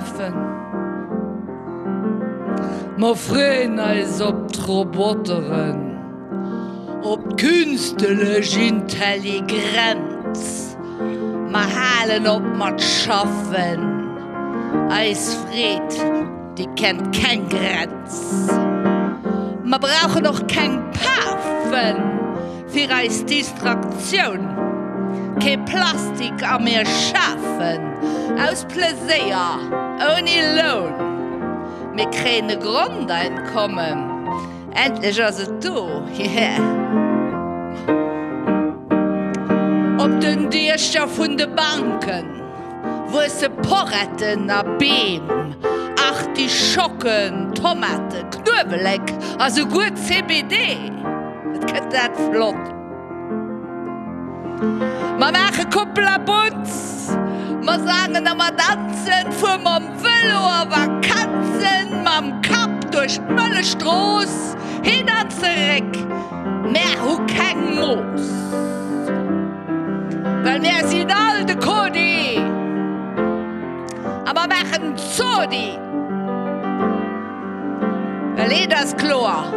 Afen. Mer freeën eis op d'Roboteren, op d'künstelech Intelligrenz. Mer halen op mat schaffen, eis Freed, déi kennt keng Grenz. Mer brauchen och keng Pafen fir eis Distraktioun, kee Plastik a mir schafen aus Pleséier, ouni Loun. Mir kréien e Grondeinkommen, endlech ass et do, yeah. Op den Diecher vun de Banken wuesse Poretten a Beem, Artischocken, Tomaten, Knuewelek a souguer CBD. Et gëtt dat flott. Mer maache Koppel a Butz, mer sangen a mer danzen, fuer mam Vëlo a Vakanzen, mam Kapp duerch d'Mëllechstrooss, hin an zeréck, mär hu keng Mooss, well mär sinn all de Kodi a mer maachen Zodi, well eent ass kloer.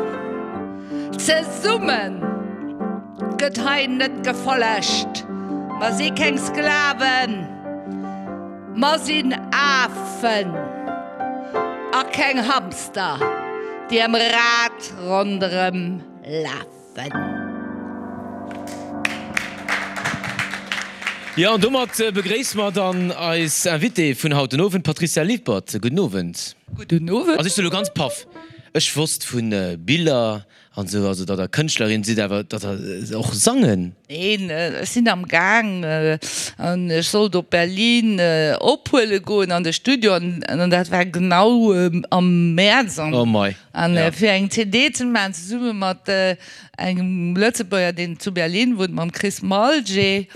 Zesumme gëtt hei net gefollegt. Mer si keng Sklaven, mer sinn Afen a keng Hamster, déi am Rad ronderëm lafen. Jo, an domat begréisse mer dann eis Invitée vun haut den Owend, d'Patricia Lippert. Gudden Owend. Gudden Owend. Also ech si lo ganz paff. Ech wosst vu Biller an esou, also datt der Kënschtlerin sidd, awer datt der och sangen. Neen, ech sinn am Gaang an ech sollt op Berlin ophuele goen an de Studio an dat war genau am Mäerz an Oh mei, an ja. fir eng CD ze maachen zesumme mat engem Lëtzebuerger deen zu Berlin wunnt, mam Chris Malger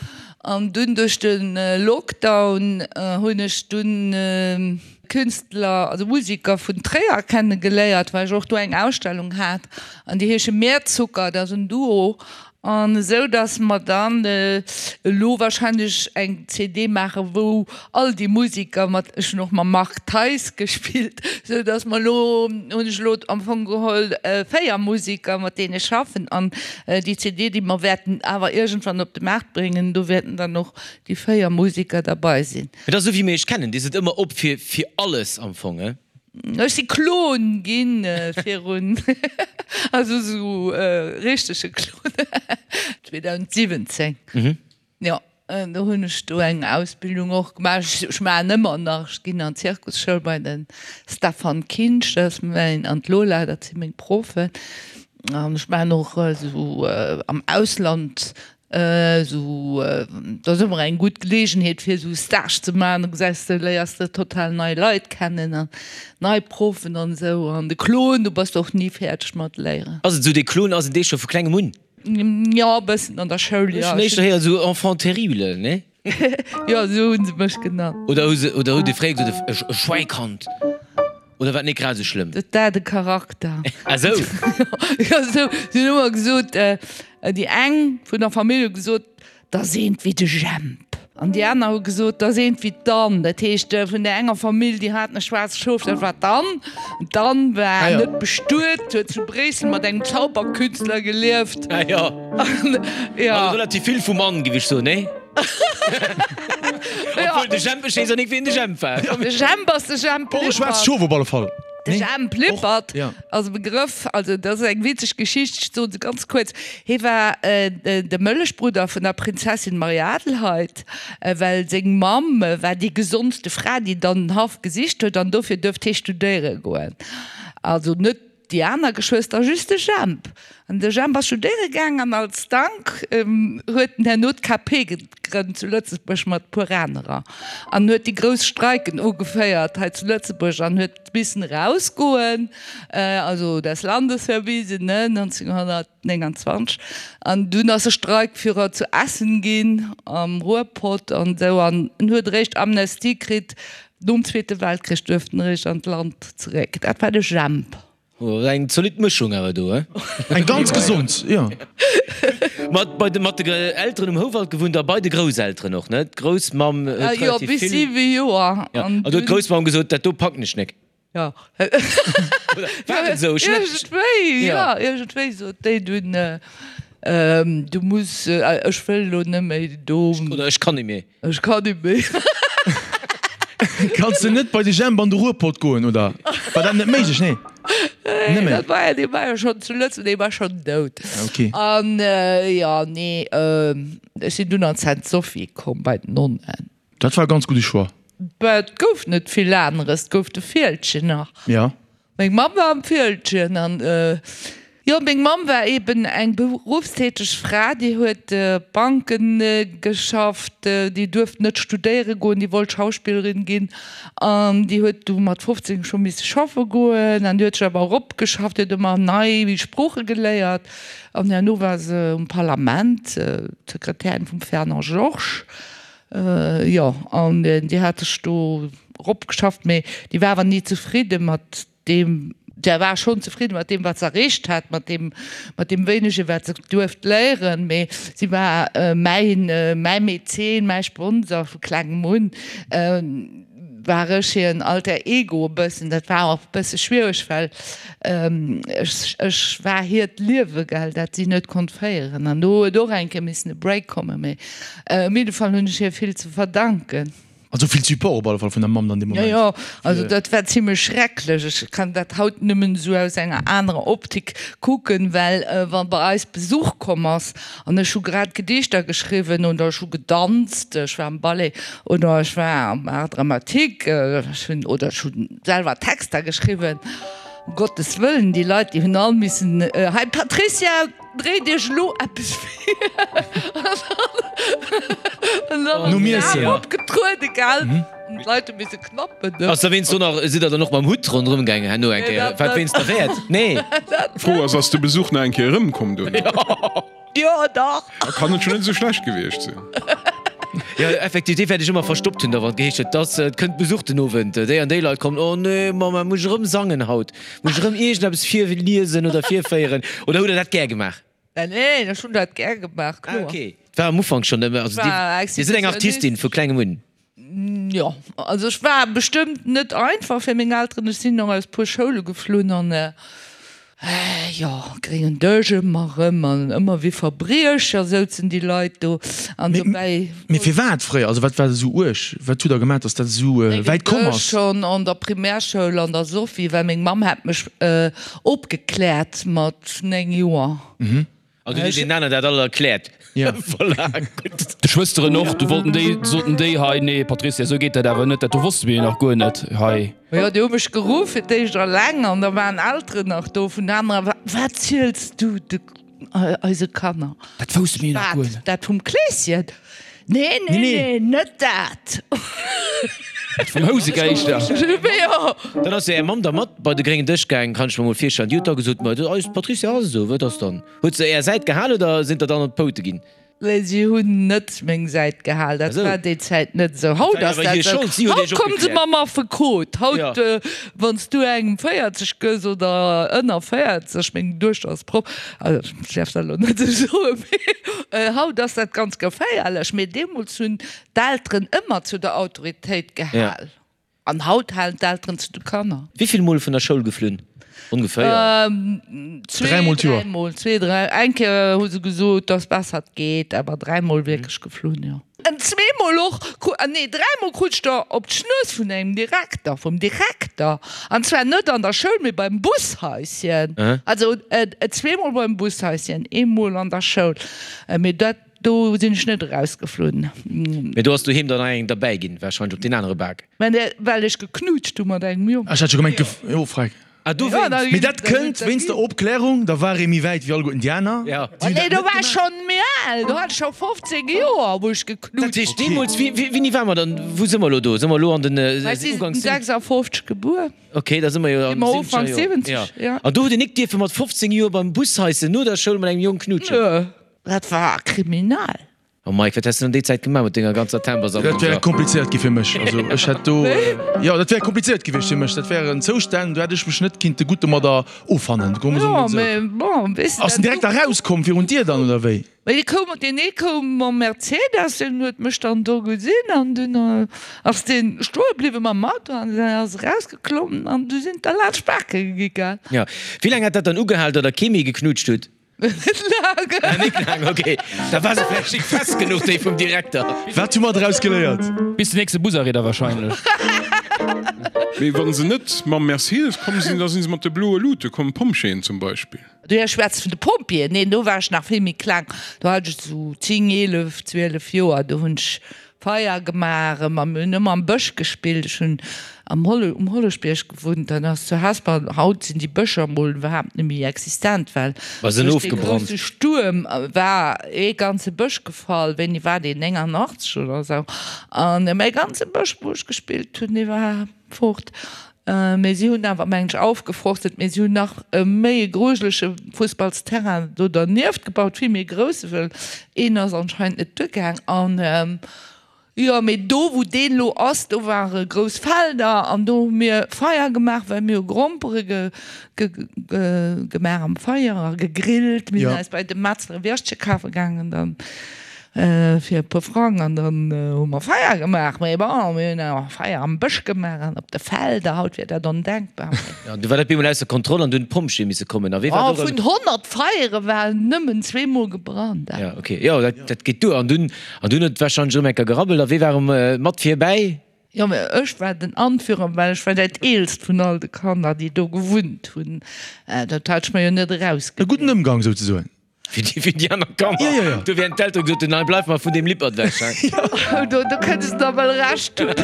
an dunn duerch de Lockdown hunn ech dunn Künstler, also Musiker vun Tréier kenne geléiert, well ech och do eng Ausstellung hat an déi heesche Meerzucker, dat ass en Duo an esou datt mer dann elo wahrscheinlech eng CD maache wou all déi Musiker mat, ech hunn och mam Marc Theis gespillt, esou datt mer elo, hunn ech elo am Fong geholl 4 Musiker mat deene ech schaffen an déi CD déi mer wäerten awer iergendwann op de Maart bréngen, do wäerten dann och déi 4 Musiker derbei sinn. Et ass esou wéi mir iech kennen, dir sidd ëmmer op fir fir alles am Fong, he? Ech si Klon ginn virun, also esou richtege Klon, 2017, jo, do hunn ech do eng Ausbildung och gemaach. Ech maachen ëmmer nach, ech ginn an d'Zirkusschoul bei de Stefan Kinsch, dat ass mäin, an d'Lola, dat si meng Proffen. An ech maachen och esou am Ausland Esou, dat ass ëmmer eng gutt Geleegenheet fir esou Stage ze maachen, da gesäis de, léiers de total nei Leit kennen an nei Proffen an esou. An de Klon, do bass de och ni fäerdeg mat léieren. Ass et esou, dee Klon, ass en dee scho vu klengem un? Jo, e bëssen an der Schoul, jo. Ech hunn éischter héieren esou Enfant terrible, nee? Jo, esou hu se mech genannt. Oder hu se, oder hutt Dir fréier gesot, e Schwäikand? Oder war et net grad esou schlëmm? Dat war de Charakter. Ah sou. Jo, sou. Si hunn ëmmer gesot, déi eng vun der Famill hu gesot, 't ass eent wéi de Jemp. An déi aner hu gesot, 't ass eent wéi d'Ann. Dat heescht, vun där enger Famill, déi haten e schwaarzt Schof, dat war d'Ann. D'Ann war net bestuet, huet zu Bréissel mat engem Zauberkünstler gelieft. Ah jo. Jo. Also relativ vill vum Ann, géif ech soen, nee? Obwuel de Jemp, ech weess och nik wien de Jemp war. De Jemp ass de Jemp Och e schwaarzt Lippert. Schof op alle Fall. De Jemp Lippert Ja. ass e Begrëff, also dat ass eng witzeg Geschicht, ech soen se ganz kuerz. Hie war de Mëllechbrudder vun der Prinzessin Marie-Adelheid, well seng Mamm war déi gesondste Fra, déi dann den Haff gesicht huet an dofir duerft hie studéiere goen. Also net Déi aner Geschwëster just de Jemp. An de Jemp ass studéiere gaang an als Dank huet en herno d'KP gegrënnt zu Lëtzebuerg mat e puer anerer an huet déi grouss Streiken ugeféiert hei zu Lëtzebuerg an huet missen erausgoen, also des Landes verwiesen, ne, 1929. An dunn ass e Streikführer zu Essen ginn, am Ruhrpott an esou an en huet eréischt Amnestie kritt Nom Zweete Weltkrich duerft en eréischt an d'Land zeréck. Dat war de Jemp. Eng zolidd Mëschung awer do, he? Eng ganz gesond, jo. Mat bei de mat de Elteren um Houwald gewunnt a bei de Grousselteren och, ne? D'Groussmamm huet Jo, relativ bis vill. 7 Joer. Ja, An an do huet dunn. d'Groussmamm gesot, dat do packen ech nek. Jo. Oder war et esou? Ech net. Iergendwéi, Ja. jo, iergendwéi sot déi dunn, du muss, ech wëll elo net méi do. Oder ech kann net méi. Ech kann net méi. Kanns de net bei de Jemp an de Ruhrpott goen, oder war dat net méiglech? Nee, net méi. Dat war jo, dee war jo schonn zu Lëtzebuerg, dee war schonn dout. Okay. An jo, nee, ech sinn dunn an d'Sainte-Sophie komm bei d'Nonnen. Dat war e ganz gudde Choix. Bah, et gouf net vill aneres, et gouf de Fieldgen nach. Ja. Meng Mamm war am Fieldgen an, jo, meng Mamm war eben eng beruffstäteg Fra, déi huet Banken geschafft, déi duerft net studéiere goen, déi wollt Schauspillerin ginn an déi huet du mat 15 scho misse schaffe goen an déi huet sech awer eropgeschafft, déi huet ëmmer nei Sprooche geléiert an herno war se um Parlament, d'Sekretärin vum Fernand Georges. Jo, an déi hat sech do eropgeschafft, mee déi war awer ni zefridde mat deem, déi war schonn zefridde mat deem, wat se erreecht hat, mat deem, mat deem wéinege, wat se duerft léieren, mee si war mäin, mäi Mäzen, mäi Sponsor vu klengem un, war ech hiren Alter Ego e bëssen. Dat war och e bësse schwiereg, well ech, ech war hiert Liewe, gell, dat si net konnt féieren. An do huet och eng Kéier missen e Break kommen, mee Op jidde Fall hunn ech hir vill ze verdanken. Also vill Support op alle Fall vun der Mamm dann dee Moment. Jo, jo, also dat war zimlech schrecklech. Ech kann dat haut nëmmen esou aus enger anerer Optik kucken, well wa bei eis Besuch komm ass an ech hu grad Gedichter geschriwwen oder ech hu gedanzt, ech war am Ballet oder ech war am Art dramatique, ech hunn oder ech hu selwer Texter geschriwwen, um Gottes Wëllen, déi Leit, déi hunn all missen, Hei Patricia! Dréit iech elo eppes vir an dann Nom Iessen. opgetruede gell an d'Leit hu misse knappen. Ass da wéinst do nach, sidd der dann och mam Hutt ronderëm gaangen herno eng Kéier? Wat wéinst der Wäert? Nee. D'Fro ass, ass de Besuch nach eng Kéier erëmkomm duerno? Jo dach. Da kann et schon net esou schlecht gewiescht sinn. Jo effektiv, dee wäert ech ëmmer verstoppt hunn, da wann et geheescht huet, dass et kënnt Besuch den Owend, déi an déi Leit kommen, oh nee Mamma, muss ech erëm sangen haut? Muss ech erëm iergendeppes virliesen oder virféieren? Oder hutt Der dat gär gemaach? Neen, ech hunn dat gär gemaach, Ah, kloer. okay. Et war am Ufank schonn ëmmer, also Ech war Dir sidd eng Artistin vu klengem un. Jo, also ech war bestëmmt net einfach fir meng Elteren. Ech sinn och aus puer Schoule geflunn an jo, gréngen Dësch ëmmer erëm an ëmmer wéi Verbriecher souzen déi Leit do an dobäi. Mee firwat fréier? Also wat war esou uerg? Wat hutt der gemaach, datt dat esou wäit komm ass? Schonn an der Primärschoul an der Sophie, well meng Mamm hat mech opgekläert mat 9 Joer. An du hues deenen aneren dat all erkläert. Voilà, gutt. De Schwësteren och, du wollten déi, soten déi hei, nee Patricia, esou geet dat awer net, dat do wosste mir jo nach guer net hei. Jo, déi hu mech geruff fir d'éischt alleng an da waren Elteren nach do vun anerer, Wat ziels du de eise Kanner? Dat wousste mir jo nach guer net. Wat, dat vum Kleeschen? Nee, nee, nee, net dat. Dat vum Housegeischter. Jo. Dann ass jo är Mamm da mat bei de gréngen Dësch gaang, kann ech mer mol virstellen. Déi huet da gesot, Ma eis Patricia ass esou, wat ass dann? Huet se är Säit gehal oder sinn der dann op d'Poute ginn? Nee, si hunn net meng Säit gehal. Dat war déi Zäit net esou. Haut ass dat esou. Haut komme se mam Affekot. Haut, wann s du engem 40 gëss oder ënner 40, meng Duechter ass Proff, also ech däerf dat elo net esou soen, mee haut ass dat ganz geféierlech. Mee deemools hunn d'Elteren ëmmer zu der Autoritéit gehal. An haut halen d'Elteren zu de Kanner. Wéivill Mol vun der Schoul geflunn? Ongeféier? Dräimol d'Joer. Dräimol, zwee, dräi. Eng Kéier hu se gesot, dass besser et geet, awer dräimol wierklech geflunn, jo. An zweemol och, nee dräimol krut ech der op d'Schnues vun engem Direkter, vum Direkter. An zwar net an der Schoul, mee beim Bushaischen. Also zweemol beim Bushaischen, eemol an der Schoul. Mee dat Do sinn ech net erausgeflunn. Mee do ass doheem dann nach eng derbäi ginn, wahrscheinlech op deen anere Bak. Mä well ech geknutscht hu mat engem Jong. Ech hat scho gemengt, jo, freck. Ah, dowéinst. Mee dat kënnt wéinst der Opklärung, da war ee méi wäit wéi alleguerten déi aner. Ja. Nee, do war ech schonn méi al, do hat ech scho 15 Joer, wou ech geknutscht Dat heescht, deemools, wéi, wéini ware mer dann, wou si mer elo do? Si mer elo an den Ech si Uganks. 56 gebuer. Ok, da si mer jo an de Ufank 70er Joer. 70, ja. An do hutt Dir nik dierfe mat 15 Joer beim Bushaisse no der Schoul mat engem Jong knutschen? Nö, dat war kriminal. Oh Mike, wat häss de an déi Zäit gemaach mat denger ganzer Timbersammlung Dat wär komplizéiert gi fir mech. Also ech hätt do, jo, dat wär komplizéiert gewiescht fir mech. Dat wären Zoustänn, do hätt ech mech net kinnte gutt domadder offannen. Jo, mee bon, weess de. Ass en direkt erauskomm virun d'Dier dann, oder wéi? Mee dee koum, deen ee koum mam Mercedes, deen huet mech dann do gesinn an dunn ass dee stoe bliwwe mam Auto an dann ass erausgeklommen an du sinn der laanscht d'Bake gi, gell. Jo. Wéi laang hat dat dann ugehal, datt der kee méi geknutscht hutt? Net laang. Ah, net laang, ok. Da war se vläicht nik fest genuch, déi vum Direkter. Wat hu mer draus geléiert? Bis den nächste Busarrêt da wahrscheinlech. Mee wann se net mam Mercedes komm sinn, da sinn se mat de bloe Luute komm, Pompjeeën zum Beispill. Du schwätz vun de Pompjeeën? Neen, do war ech nach vill méi kleng. Do hat ech esou 10, 11, 12 Joer. Do hunn ech Feier gemaach, a mir hunn ëmmer am Bësch gespillt. Ech hunn am Holle, um Holleschbierg gewunnt, dat ass zu Hesper. Haut sinn déi Bëscher mol iwwerhaapt net méi existent, well War se duerch dee ofgebrannt? grousse Stuerm war ee ganze Bësch gefall. Wéini war deen? 89 oder esou. An mäi ganze Bësch, wou ech gespillt hunn, dee war fort. Mee si hunn awer, mengen ech, aufgeforstet, mee si hunn nach e méi e grujelege Fussballsterrain do dernieft gebaut, vill méi e grousse, well een ass anscheinend net duergaang. An jo, mee do wou deen elo ass, do ware grouss Felder an do hu mir Feier gemaach, well mir hu Grompere gemaach am Feier a gegrillt. Mir sinn eis bei de Metzler e Würstche kafe gaangen dann. Fir e puer Frang an dann hu mer Feier gemaach. Mee bon, mir hunn awer Feier am Bësch gemaach an op de Felder. Haut wier dat ondenkbar. Jo, du war dat bemol ausser Kontroll an du hunn d'Pompjeeë misse kommen. A wee war Oh, do vun 100 Feiere waren nëmmen zweemol gebrannt. Jo, ok, jo, dat, dat geet duer. An dunn, an dunn huet et warscheinlech erëm eng Kéier gerabbelt. A wee war erëm mat virbäi? Jo, mee ech war den Anführer, well ech war dat eelst vun all de Kanner, déi do gewunnt hunn. Dat hat ech mer jo net E erausgesicht. gudden Ëmgang souzesoen. Fir déi, fir déi aner Kanner. Ja, ja, ja. Do wären d'Eltere gesot hunn, Nei, bleif mar vun deem Lippert ewech, hei. Oh, do, do kënns de der wëll Recht hunn.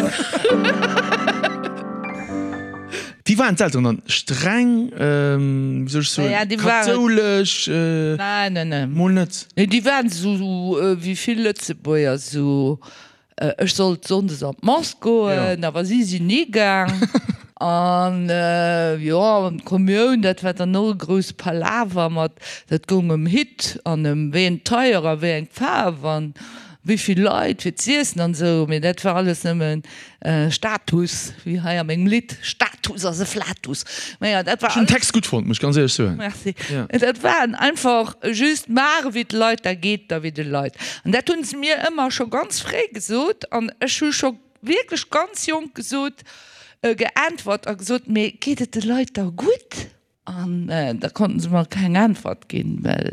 Wéi waren d'Elteren dann? Streng, wéi soll ech soen, Ja, déi waren. kathoulesch? Nein, nein, nein. Mol net? Nee, déi waren esou wéi vill Lëtzebuerger, esou Ech sollt sonndes an d'Mass goen, awer si sinn ni gaang. An jo, an d'Kommioun, dat war dann och e grousse Palaver mat, dat goung ëm Hitt an ëm wéi eng Tailleur a wéi eng Faarf an wéi vill Leit fir z'iessen an esou. Mee dat war alles nëmmen Status, wéi hei a mengem Lidd, Status ass e Flatus. Naja, dat war Ech hunn den alles. Text gutt fonnt, muss ech ganz éierlech soen. Merci. Ja. Dat waren einfach just maache wéi d'Leit, da geet der wéi de Leit. An dat hunn se mir ëmmer scho ganz fréi gesot an ech hu scho wierklech ganz jonk gesot, geäntwert a gesot, mee geet et de Leit da gutt? An da konnten se mer keng Äntwert ginn, well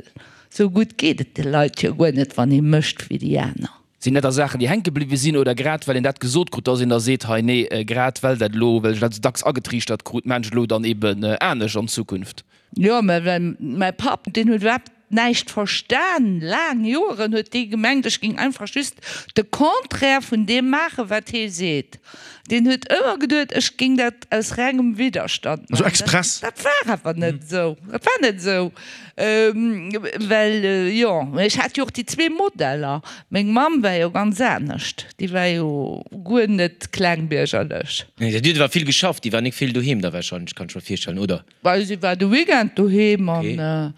esou gutt geet et de Leit jo guer net, wann ee mécht wéi déi aner. Sinn dat da Saachen, déi hänke bliwwe sinn oder grad well een dat gesot krut, dass een da seet, hei nee, grad well dat elo, well ech dat esou dacks agetriichtert krut, maan ech elo dann eben anescht an Zukunft? Jo, mä well mäi Papp, deen huet iwwerhaapt näischt verstan, laang Joeren huet dee gemengt, ech géing einfach just de Contraire vun deem maachen, wat hee seet. Deen huet ëmmer geduet, ech géing dat aus rengem Widderstand Also maachen. express? Dat war awer net esou. Dat war net esou, well, jo, ech hat jo och déi zwee Modeller. Meng Mamm war jo ganz anescht, déi war jo guer net klengbiergerlech. Nee, déi huet awer vill geschafft, déi war nik vill doheem da wahrscheinlech, kann ech mer virstellen, oder? Well si war de Weekend doheem an.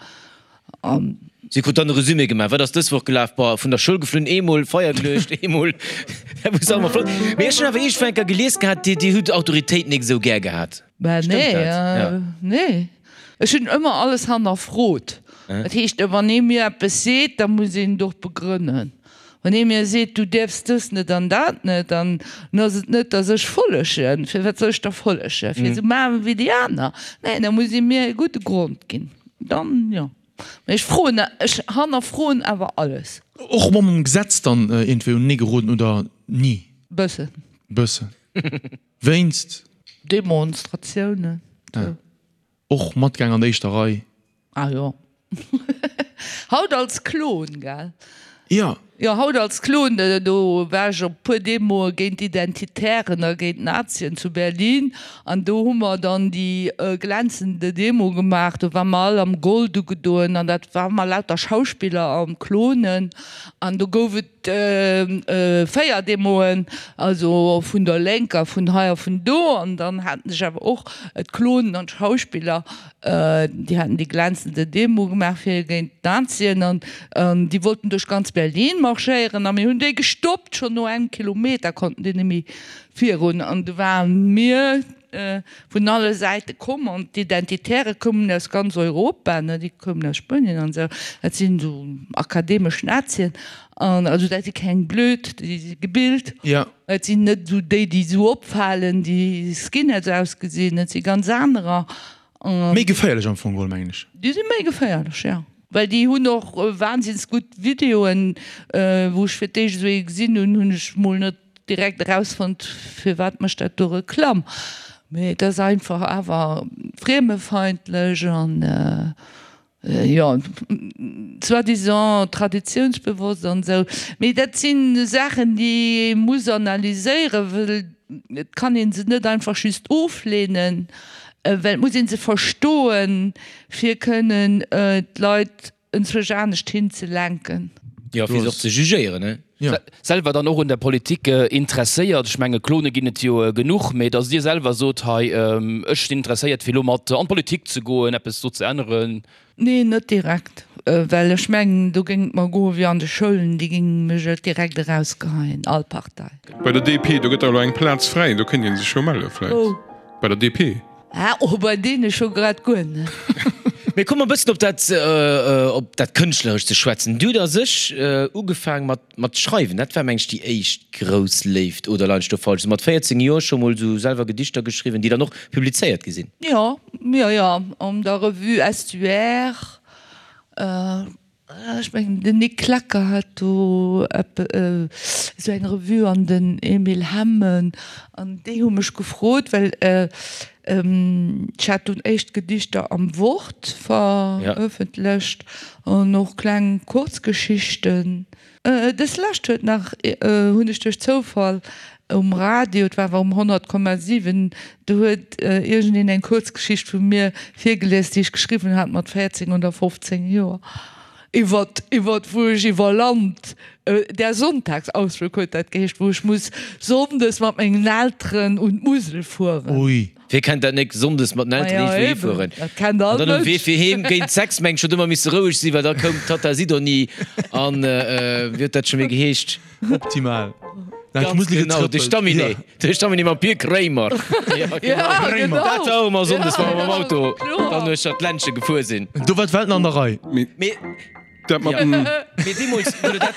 An. Si krut dann e Resumé gemaach, Wat ass dës Woch gelaf? Boah, vun der Schoul geflunn, eemol Feier geluecht, eemol. Dat wor sauer flott. Mee ech hunn awer iergendwou eng Kéier gelies gehat, Dir, Dir hutt Autoritéit nik esou gär gehat. Bah, Stëmmt nee, dat? Ja. nee. Ech hunn ëmmer alles hannerfrot. Dat heescht, wann ee mir eppes seet, da muss een et och begrënnen. Wann ee mir seet, du däerfs dës net an dat net, dann ass et net, datt ech follegen. Firwat soll ech da follegen? Fir esou maachen wéi déi aner? Nee, da muss ee mir e gudde Grond ginn. Dann jo. Mee ech froen, ech hannerfroen awer alles. Och mam Gesetz dann iergendwéi unenee geroden oder ni? Bëssen. Bëssen. Wéinst? Demonstratiounen, sou. Och matgaang an der éischter Rei. Ah jo. Haut als Klon, gell? Jo. Jo, haut als Klon. Do war ech op puer Demoe géint d'Identitären a géint d'Nazien zu Berlin. An do hu mer dann déi glänzende Demo gemaach. Do ware mer all am Gold ugedoen an dat ware mer lauter Schauspiller an Klonen. An do gouf et. et 4 Demoen, also vun der Lénker, vun hei a vun do. An dann haten sech awer och d'Klonen an d'Schauspiller, déi haten déi glänzende Demo gemaach fir géint d'Nazien an déi wollten duerch ganz Berlin marschéieren a mir hunn déi gestoppt. Schonn no engem Kilometer konnten déi net méi virun an du waren mir vun alle Säite komm an d'Identitäre koumen aus ganz Europa, ne, déi koumen aus Spuenien an esou, dat sinn esou akademesch Nazien an also dat si keng blöd, déi si gebilt, et sinn net esou déi, déi esou opfalen, déi Skinheads ausgesinn, et si ganz anerer. Méi geféierlech am Fong geholl, mengen ech. Déi si méi geféierlech, jo. Well déi hunn och wahnsinns gutt Videoen, wou ech fir d'éischt esou ee gesinn hunn, hunn ech mol net direkt erausfonnt, firwat mécht dat do Reklamm. Mee et ass einfach awer friemefeindlech an, jo, soi-disant traditiounsbewosst an esou. Mee dat si Saachen, déi ee muss analyséieren, well et kann ee se net einfach just ofleenen, well et muss ee se verstoen, fir kënnen d'Leit enzwousch anescht hinzelenken. Jo, fir se och ze jugéieren, ne? Jo. Selwer dann och un der Politik interesséiert. Ech menge Klone ginn et jo genuch, mee datt Dir selwer sot, hei ech sinn interesséiert fir elo mat an d'Politik ze goen, eppes do ze änneren. Nee, net direkt, well ech mengen do géing et mer goe wéi an de Schoulen, déi géinge mech et direkt erausgeheien, all Partei. Bei der DP, do gëtt der elo eng Plaz fräi, do kéint ee sech jo melle vläicht. Wou? Bei der DP. Ah, oh, bei deene scho grad guer net. Mee komme mer e bëssen op dat, op dat Kënschtlerescht ze schwätzen. Du hutt a sech ugefaang mat, mat schreiwen. Dat war, meng ech, déi éischt grouss Léift, oder leien ech do falsch? Sou mat 14 Joer scho mol sou selwer Gedichter geschriwwen, déi dann och publizéiert gi sinn. Jo, jo, jo, an der Revue Estuaire. Ech mengen den Nic Klecker hat do esou eng Revue an den Emile Hemmen an déi hu mech gefrot, well ech hat dunn éischt Gedichter am Wort verëffentlecht an och kleng Kuerzgeschichten. Dës lescht huet nach, hunn ech duerch Zoufall um Radio, et war awer um 100,7, do huet iergendeen eng Kuerzgeschicht vu mir virgelies, déi ech geschriwwen hat mat 14 oder 15 Joer, iwwert, iwwert wou ech iwwer Land, Der Sonntagsausflug huet dat geheescht, wou ech muss sonndes mat mengen Elteren un d'Musel fueren. Ui. Wie kennt dat nek, Sonndes mat den Elteren iergendwou hifueren an dann um Wee fir heem géint 6 meng ech huet ëmmer misse roueg sinn, well da koum d'Tatta Sidonie an wéi huet dat scho méi geheescht? Optimal. Ganz genau, de Stamminet, de Stamminet mam Pir Kréimer. Ja, genau. Dat war och ëmmer Sonndes, wa mer mam Auto dann uechter d'Ländche gefuer sinn. Do war d'Welt nach an der Rei. Mee. Dat mat dem. Mee deemools, wou der dat,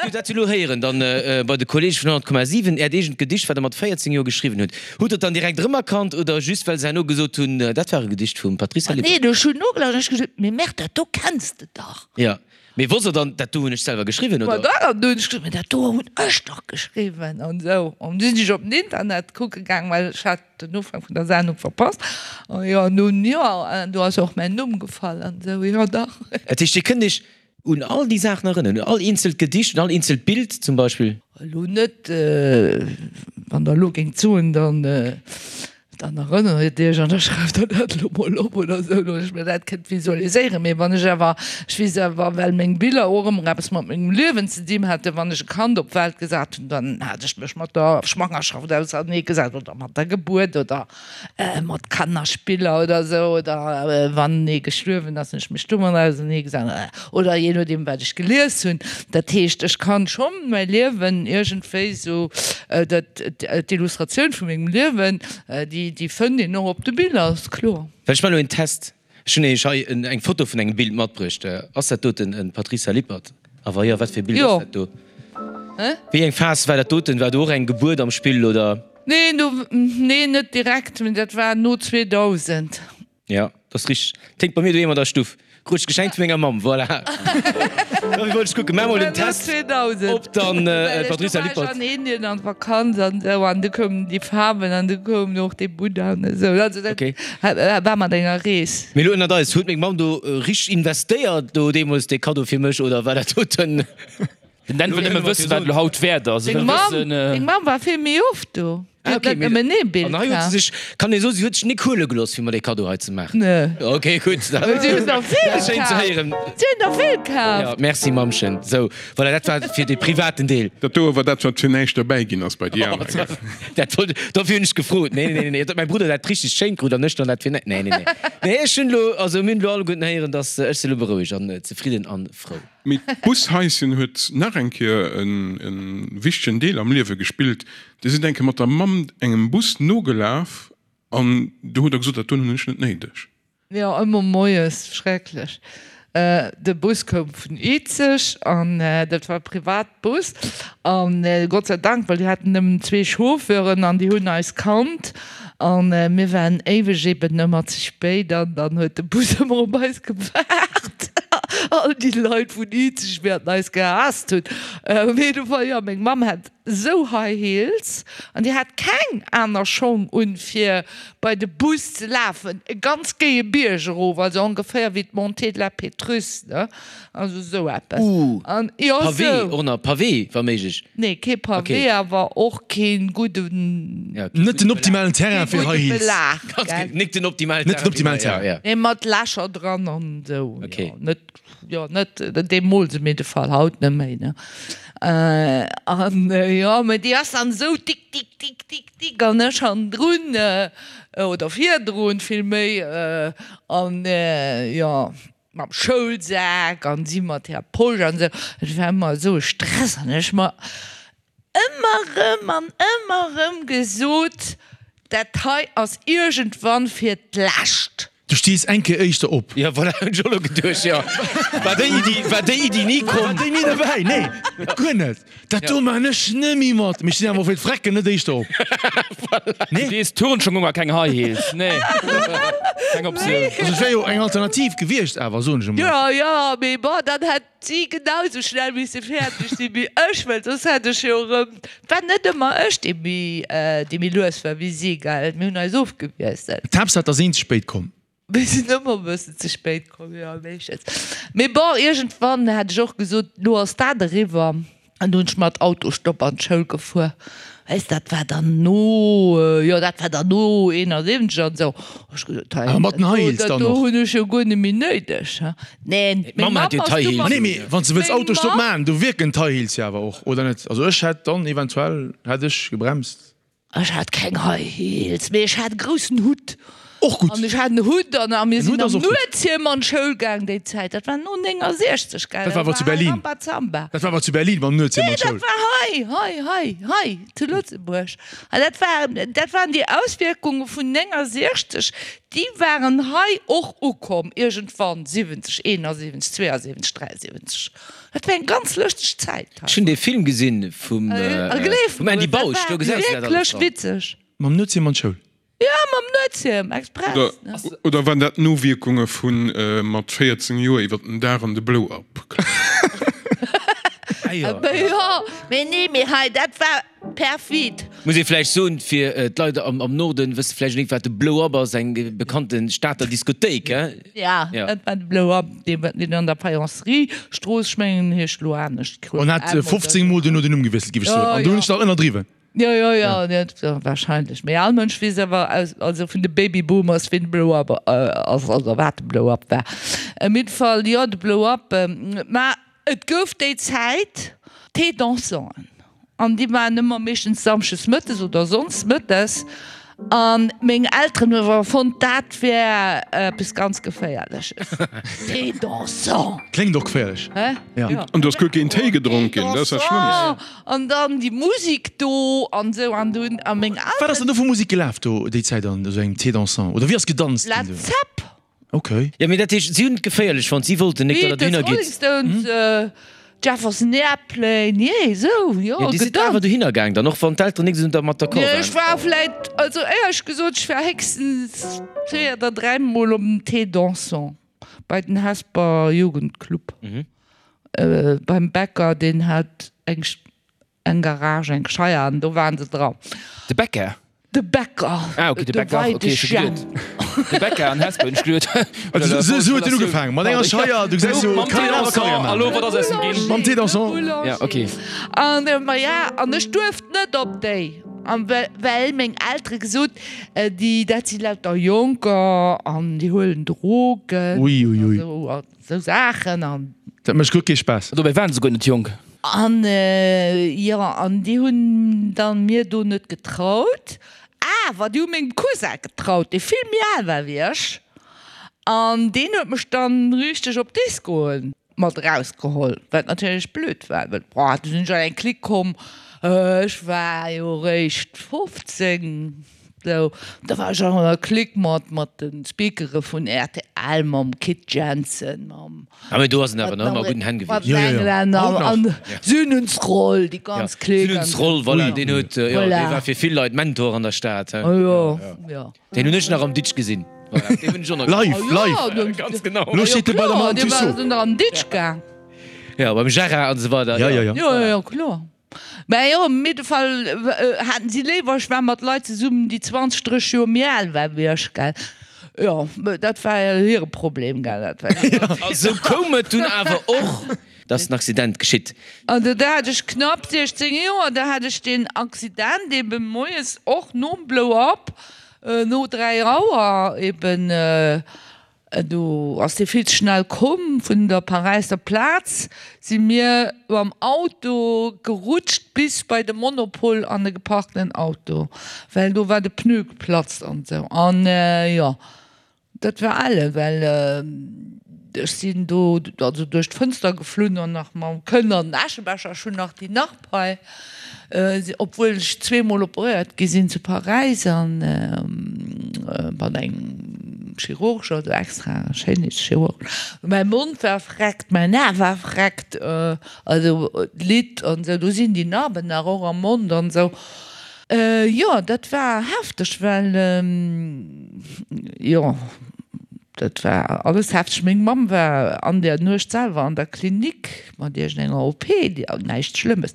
wou dat elo héieren, dann bei de Kollege vun 100,7, Äert eegent Gedicht, wat Der mat 14 Joer geschriwwen hutt, hutt Der et dann direkt erëmerkannt oder just well se herno gesot hunn, dat war e Gedicht vum Patrice Lippert? Nee, ech hunn nogelauschtert an ech gesot, mee Merde, dat do kenns de dach. Jo, mee wosst Der dann, dat do hunn ech selwer geschriwwen, oder? Ma dach, an du hunn ech gesot, mee dat do hunn ech dach geschriwwen an esou. An du sinn ech op den Internet kucke gaang, well ech hat den Ufank vun der Sendung verpasst. An jo, nun jo, an do ass och mäin Numm gefall an esou, jo dach. Dat heescht, Dir kënnt Iech un all déi Saachen erënneren, un all eenzelt Gedicht, un all eenzelt Bild zum Beispill? Elo net, wann Der elo géingt soen, dann, dann erënnert Iech an da schreift Der dat elo mol op oder esou, datt ech mir dat kënnt visualiséieren. Mee wann ech awer, ech weess awer, well meng Biller och ëmmer eppes mat mengem Liewen ze dinn haten, wann ech e Kand op d'Welt gesat hunn, dann hat ech mech mat der Schwangerschaft auserneegesat oder mat der Gebuert oder mat Kannerspiller oder esou oder wann ee gestuerwen ass, hunn ech mech domat auserneegesat oder jee nodeem wat ech gelies hunn. Dat heescht, ech kann schonn mäi Liewen iergendwéi esou, dat d'Illustratioun vu mengem Liewen, déi déi fënnt een och op de Biller, ass kloer. Well ech maachen elo een Test. Ech hunn Iech hei eng Foto vun engem Bild matbruecht. Ass dat doten en Patricia Lippert? A wa jo, wat fir e Bild ass dat do? Wéi eng Phas war dat doten? War do och eng Gebuert am Spill, oder? Nee, nee, net direkt, mee dat war no 2000. Jo, dat ass richteg. Ténkt bei mir doheem an der Stuff. Krut ech geschenkt vu menger Mamm, voilà. Dofir wollt ech kucken. Maach mol den Test, ob dann d'Patricia Lippert. Do war ech an Indien an Vakanz an esou an du koumen déi Faarwen an du koum och dee Buddha an esou. Also dat war mat enger Rees. Mee elo ënnert eis, huet meng Mamm do richteg investéiert do deemools dee Kaddo fir mech oder war dat doten? Den Dan wëll nëmme wëssen, wat elo haut wäert ass. Deng Mamm war vill méi oft do. Ah, okay, net nëmmen ee Bild An hei huet kaf. se sech, kann ee soen, si huet sech nik huele gelooss, fir mer dee Kaddo hei ze maachen. Nee. Okay, gutt. Si hunn der vill Dat ass schéin ze kaf. héieren. Si hunn der vill kaf. Ja, merci Mammchen. Sou, voilà, dat war fir de privaten Deel. Dat doe war dat, wat fir näischt derbäi ginn ass bei déi aner, gell? Dat wollt, dofir hunn ech gefrot. Nee, nee, nee, nee, datt mäi Brudder dat richteg schéin krut an ech dann dat fir näischt. Nee, nee, nee. Nee, ech hunn elo, also mir hunn elo alleguerten héieren, datt ech si elo berouegt an zefridden an frou. Mee d'Bushaischen huet nach eng Kéier e wichtegen Deel am Liewe gespillt. Dir sidd eng Kéier mat der Mamm engem Bus nogelaf an do hutt Der gesot, dat doen hunn ech net néideg. Jo, ëmmer moies, schrecklech. De Bus koum vun Izeg an dat war e Privatbus an Gott sei Dank, well déi haten nëmmen zwee Chauffeuren an déi hunn eis kannt an mir waren éiweg eben ëmmer ze spéit an dann huet de Bus ëmmer op eis gewaart. All déi Leit vun Izeg wäerten eis gehaasst hunn. Op jidde Fall, jo, meng Mamm hat esou High Heels an déi hat keng aner Schong un fir bei de Bus ze lafen, e ganz géie Bierg erof, also ongeféier wéi d'Montée de la Pétrusse, ne, also esou eppes. Ooh, An jo, Pavé, esou. och nach Pavé, wa méiglech. Nee, kee Pavé, Okay. awer och kee gudden, Ja, kee Net den gudde optimalen Terrain kee fir gudde High Heels. Belag, Belag. gell. Nik den optimalen Net den Terrain fir optimalen High, ja, Terrain. ja. Nee, mat Lächer dran an esou, Okay. jo, net. Jo, net deemools, op jidde Fall haut net méi, ne. An jo, mä déi ass dann esou tik, tik, tik, tik, tik an ech hannendrun, oder virdrun villméi, an jo, mam Schoulsak an si mat hirer Posch an esou. Et war ëmmer esou e Stress an ech mer ëmmer erëm an ëmmer erëm gesot, dat hei ass iergendwann fir d'lescht. Du stees eng Kéier éischter op. Jo, voilà, hunn ech och elo geduecht, jo. War déi Iddi, war déi Iddi ni komm? War déi ni derbäi? Nee, guer net. Dat do maan ech nemmi mat. Mee ech stinn awer och fir d'Frecken net éischter op. Voilà. Nee. Du dees Turnschong un a keng High Heels. Nee, keng Optioun. Also et wär jo eng Alternativ gewiescht awer, soen ech emol. Jo, jo, mee bon, dann hätt si genau sou schnell misse fäerdeg sinn wéi ech, well soss hätt ech jo erëm, et war net ëmmer ech, dee méi, dee méi lues war wéi si, gell, mir hunn eis ofgewiesselt. D'Haaptsaach, et ass een ze spéit komm. Mir sinn ëmmer e bëssen ze spéit komm, jo, meeschtens. Mee bon, iergendwann hat ech och gesot, lo ass dat eriwwer. An du hunn ech mat Autostopp an d'Schoul gefuer. Weess, dat war dann no, jo, dat war dann no 71 an esou. Hu ech gesot, hei, Awer mat den High Heels dat dann do och? hunn ech jo guer net méi néideg. Neen, meng D'Mamm Mamm hat jo ass d'High du Heels. Ma mat. nee, mee wann s de wëlls Meng Autostopp Mamm. maachen, do wierken d'High Heels jo awer och, oder net? Also ech hätt dann eventuell, hätt ech gebremst. Ech hat keng High Heels, mee ech hat e groussen Hutt. Och gutt. An ech hat en Hutt an a mir En sinn Hutt ass am och gutt. Nuetshiem an d'Schoul gaang déi Zäit. Dat war no 69, gell? Dat war awer zu Berlin. Rambazamba. Dat war awer zu Berlin mam Nuetshiem Nee, an d'Schoul. dat war hei, hei, hei, hei zu Lëtzebuerg. An dat waren, dat waren déi Auswierkunge vun 69, déi waren hei och ukomm iergendwann, 70, 71, 72, 73. Dat war eng ganz lëschteg Zäit hei. Ech hunn dee Film gesinn vum A gleef vum Andy mer, dat Bausch, war do gesäis de dat alles wierklech dran. witzeg. Mam Nuetshiem an d'Schoul. Jo, mam Nuetshiem, express, Oder, ne? oder waren dat d'Nowierkunge vu mat 14 Joer iwwer den Daach an de Blow-up klammen? Ah jo. Jo, mee nee, mee hei, dat war perfid. Muss ee vläicht soen, fir d'Leit am Norden wësse vläicht net wat de Blow Up ass, eng bekannte Stater Diskothéik, he? Ja, dat war de Blow Up, deen an der Faïencerie Strooss, ech mengen en heescht elo anescht, En hat 15 mol duerno den Numm gewiesselt, géif ech soen, an do hunn ech nach ënnerdriwwen. Jo, jo, jo, jo, wahrscheinlech. Mee all Mënsch weess awer aus, also vun de Babyboomers, ween de Blow Up ass, also wat de Blow Up war. Op jidde Fall, jo, de Blow Up, mä Et gouf déi Zäit Thé-dansanten an déi waren ëmmer meeschtens samschdes mëttes oder sonndes mëttes a meng Elteren hu awer fonnt, dat wär eppes ganz Geféierleches. Thé dansant! Kléngt och geféierlech. Hä? Ja. An do ass guer keen Téi gedronk ginn, dat ass dat Schlëmmst. An dann déi Musik do an esou an du hunn a meng Elteren. Wat ass dann do vu Musik gelaf do déi Zäit an esou engem Thé dansant oder wéi ass gedanzt ginn do? Led Zepp! Ok. Jo, mee dat heescht, si hunn et geféierlech fonnt, si wollten nik, datt der Beatles, dohinner Rolling gitt. Stones, Jefferson Airplane, jee, esou, jo, Jo, Dir sidd awer gedanzt. dohinner gaang dann, och wann d'Elteren nik esou dermat d'accord Nee, ech waren? war vläit, also éierlech gesot, ech war héchstens zwee oder dräimol op den Thé dansant bei den Hesper Jugendclub, beim Bäcker, deen hat eng Eng Garage, eng Scheier an do waren se dran. De Bäcker? De Bäcker. Ah ok, de Bäcker, ok, ech hu geduet de Bäcker an Hesper, hunn ech geduet. Also sou huet en ugefaangen, mat enger Scheier, du gesäis jo, Mam kann Thé een awer Karriär dansant, maachen. a lo, wat ass aus em ginn? Mam Thé dansant. Ja, ok. An ma ja, an ech duerft net op déi. An well meng Eltere gesot, déi, dat si lauter Jonker an déi huelen Drogen Ui, ui, ui. an esou Saachen an. Dat mécht guer kee Spaass. Dobäi waren se guer net jonk. An jo, an déi hunn dann mir do net getraut. Awer déi hu mengem Cousin getraut, dee vill méi al war wéi ech. An deen huet mech dann richteg op Discoen mat erausgeholl, wat natierlech blöd war, well boah, du sinn ech an eng Clique komm, ech war jo eréischt 15, sou, da war ech an enger Clique mat mat de Speakere vun rtl, mam Kit Jensen, mam Ah mee do ass en awer nach ëmmer a gudden Hänn mat gewiescht. den Englänner Haut nach. an Sünensroll, déi ganz Clique Sünensroll, voilà, deen huet, jo, dee Voilà. war fir vill Leit Mentor an der Stad, he. Jo, jo. Deen hunn ech nach am Ditsch gesinn. Voilà, deen hunn ech och nach Live, gesinn. live. Ganz genau. Lo steet e bei der Madame Tussaud. Dee war an Ditsch gaang. Ja, beim Gérard an esou weider. Ja, ja, ja. Jo, jo, jo, kloer. Mä jo, op jidde Fall haten si léiwer, ech war mat Leit zesummen, déi 20, 30 Joer méi al waren wéi ech, gell. Jo, dat war hire Problem, gell. Dat war hire A sou koum et dunn awer och, dass den Accident geschitt. An do hat ech knapp 16 Joer, da hat ech deen Accident eben moies och nom Blow Up, no 3 Auer eben, do ass dee vill ze schnell komm vun der Paräisser Plaz, si mir mam Auto gerutscht bis bei de Monopol an e geparkten Auto, well do war de Pneu geplatzt an esou an jo. Dat war elle, well ech sinn do also duerch d'Fënster geflunn an nach mam Kënn an den Äschebecher. Ech hunn nach déi Narb hei, obwuel ech zweemol operéiert gi sinn zu Paräis an mat engem Chirurg, also extra Schéinheetschirurg. Mäi Mond war vreckt, mäin A war vreckt, also d'Lidd an esou, do sinn déi Narben nach och am Mond an esou. Jo, dat war hefteg, well jo, dat war alles hefteg. Meng Mamm war an der Nuecht selwer an der Klinik mat iergendenger OP, näischt Schlëmmes.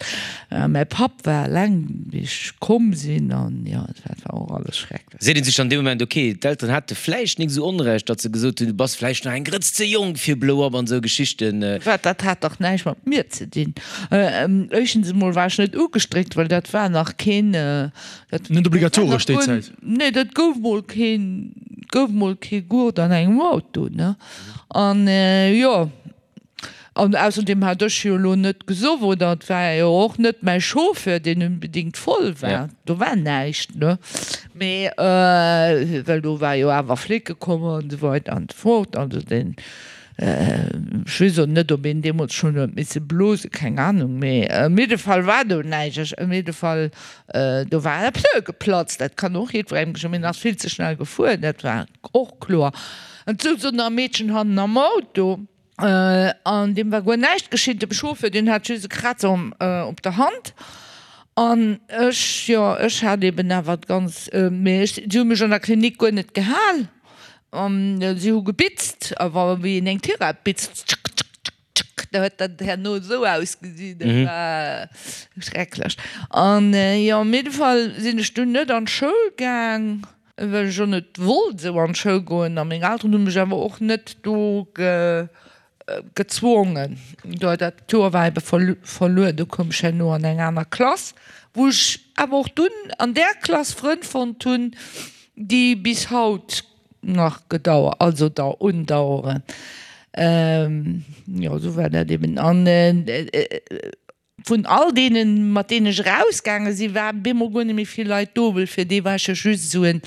Mäi Papp war eleng, wéi ech komm sinn, an jo, dat war och alles schrecklech. Seet een sech dann dee Moment, ok, d'Elteren hate vläicht nik esou Onrecht, datt se gesot hunn, du bass vläicht nach eng Grëtz ze jonk fir Blow Up an esou Geschichten. Wat, dat hat dach näischt mat mir ze dinn. Éischtens emol war ech net ugestréckt, well dat war nach keen, dat Net obligatoresch déi Zäit? Nee, dat gouf mol keen, gouf mol kee Gurt an engem Auto, ne. An jo. An ausserdem hat ech jo elo net gesoff, oder et war jo och net mäi Chauffeur, deen unbedingt voll war. Do war näischt, ne? Mee well do war jo awer Flicke komm an esou weider an esou fort. Also deen, ech weess och net, ob een deemools schonn huet misse blosen, keng Ahnung. Mee op jidde Fall war do näischt. Ech, op jidde Fall, do war e Pneu geplatzt, dat kann och jiddwerengem geschéien. Mee en ass vill ze schnell gefuer, dat war och kloer. An et souz och nach e Meedchen hannen am Auto. An deem war guer näischt geschitt. Dem Chauffeur, deen hat just e Krazer op der Hand. An ech, jo, ech hat eben awer d'ganz, mee ech, si hu mech an der Klinik guer net gehal. An si hu gebitzt, awer wéi een eng Tirett bitzt, tschëck, tschëck, tschëck, tschëck, da huet dat herno esou ausgesinn, dat war schrecklech. An jo, op jidde Fall sinn ech dunn net an d'Schoul gaang. Well ech och net wollt esou an d'Schoul goen a meng Elteren hu mech awer och net do gezwongen. Do dat Joer war ebe verluer, do koum ech herno an eng aner Klass, wou ech awer och dunn an där Klass Frënn fonnt hunn, déi bis haut nach gedauert, also dau undaueren. Jo, esou war dat eben. An Vun all deenen, mat deenen ech erausgaange sinn, waren bemol guer net méi vill Leit do, well fir déi war ech jo just esou en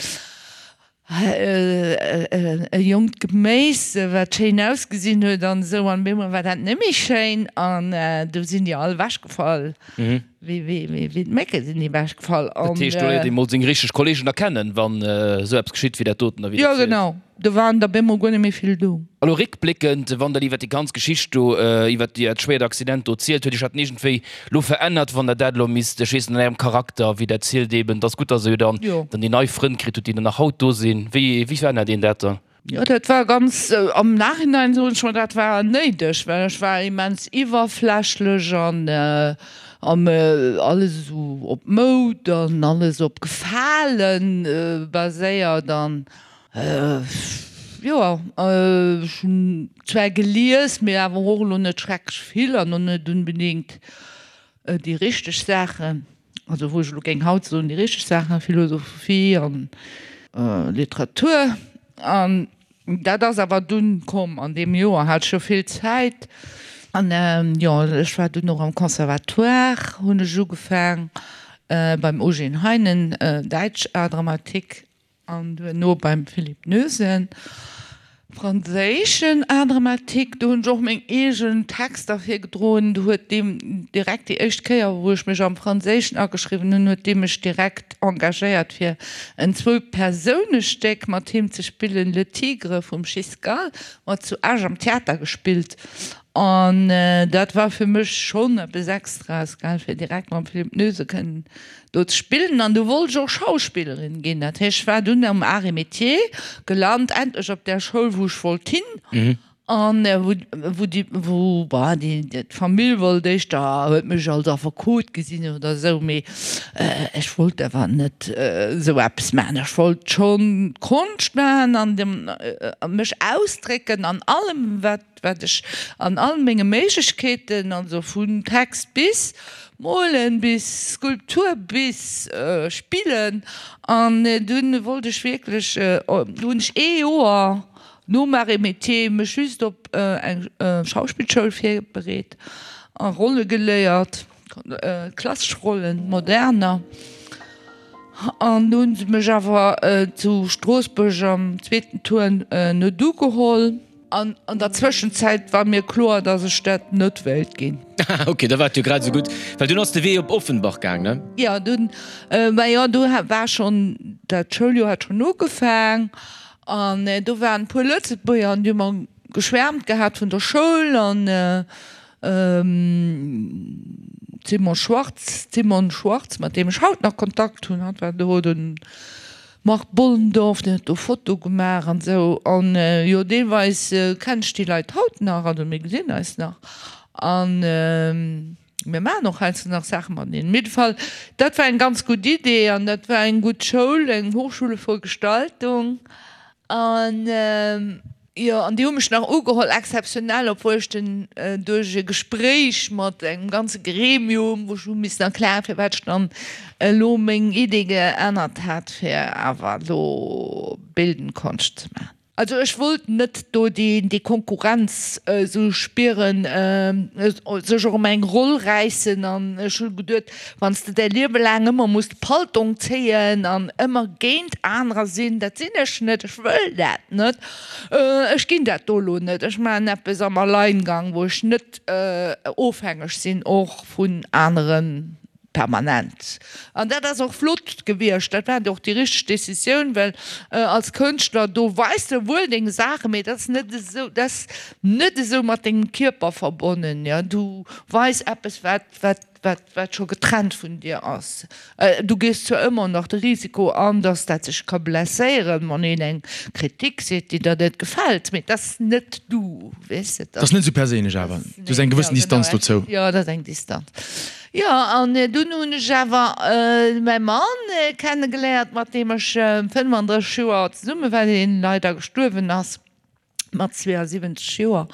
e jonkt Geméis, wat schéin ausgesinn huet an esou. An bemol war dat net méi schéin an du sinn déi all ewechgefall, wéi wéi d'Mécke sinn déi ewechgefall. Dat heescht, do léiert ee mol seng richteg Kolleegen erkennen, wann esou eppes geschitt wéi dat doten da, wéi Jo, genau. Do waren der bemol guer net méi vill do. A lo réckbléckend, wann Der iwwer déi ganz Geschicht do, iwwer dat schwéiert Accident do zielt, huet Iech dat iergendwéi lo verännert, wann Der dat elo misst, ech weess net, an Ärem Charakter, wéi Der zielt eben, et ass gutt, dass Der jo dann dann déi nei Frënn kritt hutt, déi dann nach haut do sinn. Wéi, wéi verännert een dat dann? Jo, dat war ganz, am Nachhinein soen ech mer, dat war néideg, well ech war immens iwwerflächlech an alles esou op Moud an alles op Gefalen baséiert an Jo, ech hunn zwar gelies, mee awer och elo net schrecklech vill an och net onbedéngt déi richteg Saachen. Also wou ech elo géing haut soen, déi richteg Saachen, Philosophie an Literatur. An dat ass awer dunn komm an deem Joer hat ech jo vill Zäit. An jo, ech war dunn och am Conservatoire, hunn ech ugefaang beim Eugène Heinen, Däitsch Art dramatique. An duerno beim Philippe Noesen, franséischen Art dramatique. Do hunn ech och meng eegen Texter virgedroen. Do huet dee direkt déi éischt Kéier, wou ech mech am Franséischen ageschriwwen hunn, huet dee mech direkt engagéiert fir en Zwou-Persounestéck mat him ze spillen, Le Tigre vum Giscal, mat zu Esch am Theater gespillt. An dat war fir mech schonn eppes Extraes, gell, fir direkt mam Philippe Noesen kënnen do ze spillen an du wollt ech och Schauspillerin ginn. Dat heescht, ech war dunn am Arts et Métiers gelant, endlech op där Schoul, wou ech wollt hin an wou, wou déi, wou, bah, déi, d'Famill wollt éischter, huet mech als Affekot gesinn oder esou, mee ech wollt awer net esou eppes maachen. Ech wollt schonn Konscht maachen an dem, mech ausdrécken an allem, wat. wat ech an all menge Méiglechkeeten, also vun Text bis Molen, bis Skulptur, bis Spillen, an dunn wollt ech wierklech, du hunn ech ee Joer nom Arts et Métiers mech just op eng Schauspillschoul virbereet a Rolle geléiert, klassesch Rollen, moderner. An du hunn se mech awer zu Stroossbuerg am zweeten Tour net ugeholl. An an der Zwëschenzäit war mir kloer, dass ech dat net wéilt ginn. Ok, da war et jo grad esou gutt, well dunn ass de Wee op Offenbach gaang, ne? Jo, dunn, mä jo, do war schonn, dat Schouljoer hat schonn ugefaang an do waren e puer Lëtzebuerger an déi hu mer geschwäermt gehat vun der Schoul an d'Simon Schwartz, d'Simone Schwartz, mat deem ech haut nach Kontakt hunn, hatt war do den Marc Bollendorf, deen huet do Foto gemaach an esou. An jo, deelweis kennen ech déi Leit haut nach, also mir gesinn eis nach an mir maachen och heiansdo nach Saache mateneen. Op jidde Fall, dat war eng ganz gutt Idee an dat war eng gutt Schoul, eng Hochschule für Gestaltung. An jo, an déi hu mech nach ugeholl, exzeptionell, obwuel ech den duerch e Gespréich mat engem ganze Gremium, wou ech hu missen erklären, firwat ech dann elo meng Idee geännert hat, fir awer elo Bildend Konscht ze maachen. Also ech wollt net do déi Konkurrenz esou spieren, sech och ëm eng Roll räissen an ech hu geduet, Wann s de däi Liewe laang ëmmer muss de Paltong zéien an ëmmer géint anerer sinn, dat sinn ech net, ech wëll dat net, ech ginn dat do elo net, ech maachen eppes am Alleingang, wou ech net ofhängeg sinn och vun anere permanent. An dat ass och flott gewiescht, dat war och déi richteg Decisioun, well als Kënschtler, do weis de wuel deng Saachen, mee dat ass net esou, dat ass net esou mat dengem Kierper verbonnen, jo, du weis eppes wat, wat. wat wat scho getrennt vun dir ass. Du gees zwar ëmmer nach de Risiko an, dass dat sech ka blesséieren, wann een eng Kritik seet, déi der net gefält, mee dat ass net du, weess de. Dat ass net esou perséinlech awer, du hues eng gewëssen Distanz dozou. Jo, dat ass eng Distanz. Jo, an dunn hunn ech awer mäi Mann kennegeléiert, mat deem ech 35 Joer zesumme war, deen leider gestuerwen ass. mat 72 Joer,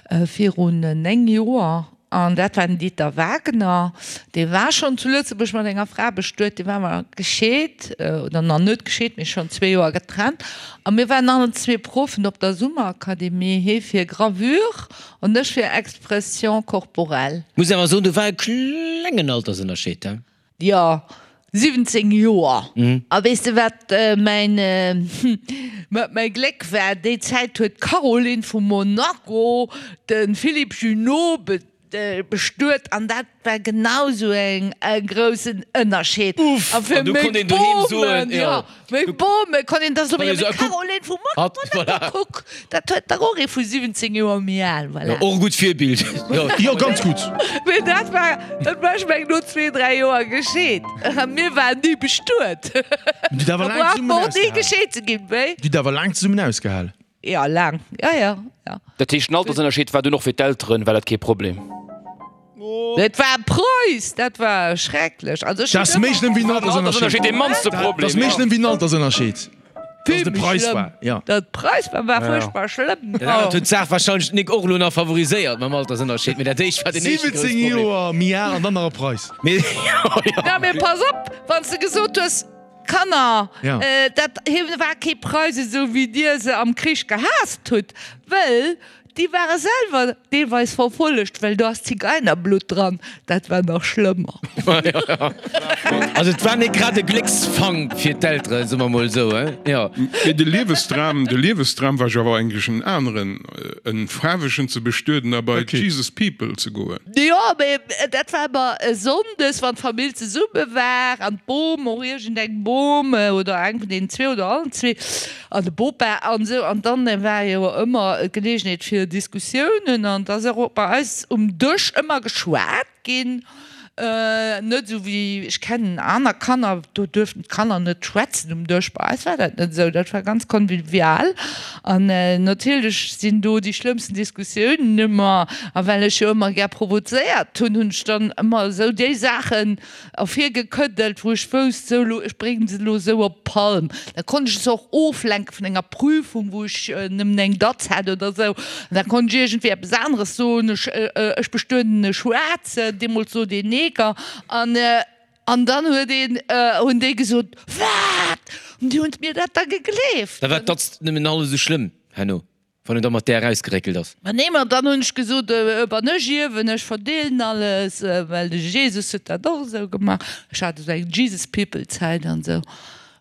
virun 9 Joer, an dat war den Dieter Wagner, dee war schonn zu Lëtzebuerg mat enger Fra bestuet, dee war awer gescheet, oder nach net gescheet, mee schonn zwee Joer getrennt, a mir waren allen zwee Proffen op der Summerakademie, hee fir Gravure an ech fir Expression corporelle. Muss awer soen, do war e klengen Altersënnerscheed, he? Jo, 17 Joer. A weess de wat mäin, wat mäi Gléck war? Déi Zäit huet d'Caroline vu Monaco de Philippe Junot bestuet an dat war genau sou eng e groussen Ënnerscheed. Uff! A fir An du meng konnt een doheem soen, Bomen, jo. jo, meng Bome konnt een da soen, Konnt een jo soen, mee kuck, Caroline vu hatt, Monaco, voilà. kuck, dat huet dach och ee vu 17 Joer méi al, voilà. Jo, och e gutt Virbild. Jo, jo, ganz gutt. Mee dat war, dat war, ech meng, no zwee, dräi Joer gescheet. A mir waren ni bestuet. Dir hutt awer Da laang brauch zesummen mer och ni ausgehal. gescheet ze ginn, wéi? Dir hutt awer laang zesummen ausgehal. Jo, laang, jo, jo, jo. Dat heescht, den Altersënnerscheed war dunn och fir d'Elteren, war dat kee Problem? Dat war Preuss, dat war schrecklech. Also ech Dat ass hunn méi ëmmer. schlëmm wéi en Altersënnerscheed, Altersënnerscheed. dee mannste Dat Problem, ass méi jo. schlëmm wéi en Altersënnerscheed. Vill méi schlëmm. Datt Preis war, war fuerchtbar schlëmm. Dat anert huet d'Saach warscheinlech d'Nick och elo nach favoriséiert mam Altersënnerscheed, mee dat éischt war den éischte grousse 17 Problem. Joer méi al an dann nach e Preis. Mee jo, jo. Na, mee pass op, wann s de gesot hues, Kanner, dat hie war kee Preis esou wéi dir se am Krich gehaasst hutt, wëll Déi ware selwer deelweis verfollegt, well do ass Zigeinerblutt dran, dat war nach schlëmmer. Also et war net grad e Glécksfank fir d'Elteren, soe mer mol esou, he? Jo. Mee de Liewesdram, de Liewesdram war jo awer eigentlech en aneren, en Faarwegen ze bestueden a bei d'Jesus People ze goen. Jo, mee dat war ëmmer e Sonndes, wann d'Famill zesumme war an d'Bom, och iergendeng Bom oder eng vun deenen zwee oder allen zwee, An de Bopa an esou. An dann war jo ëmmer d'Geleegenheet fir Diskussiounen. An et ass och bei eis um Dësch ëmmer geschwat ginn. Net esou wéi, ech kennen aner Kanner, do duerften d'Kanner net schwätzen um Dësch. Bei eis war dat net esou. Dat war ganz convivial. An natierlech sinn do déi schlëmmsten Diskussiounen ëmmer. A well ech jo ëmmer gär provozéiert hunn, hunn ech dann ëmmer esou déi Saachen, Ervirgekëddelt, wou ech wousst, sou lo, ech bréngen se lo sou op d'Palm. Da konnt ech se och oflenke vun enger Prüfung, wou ech nëmmen eng Datz hat oder sou. An da konnt ech iergendwéi eppes aneres soen, ech, ech bestueden e Schwaarzen, deemools sot een Neger. An, an dann huet een, hunn déi gesot, Wat? An déi hunn mir dat da gegleeft. Da war d'Datz nëmmen hallef esou schlëmm herno. Wann en da mat där erausgeréckelt ass. Ma nee, ma dann hunn ech gesot, Wann ech ierwen, ech verdeelen alles, well de Jesus huet dat och esou gemaach. Ech hat esou eng Jesus People Zäit an esou.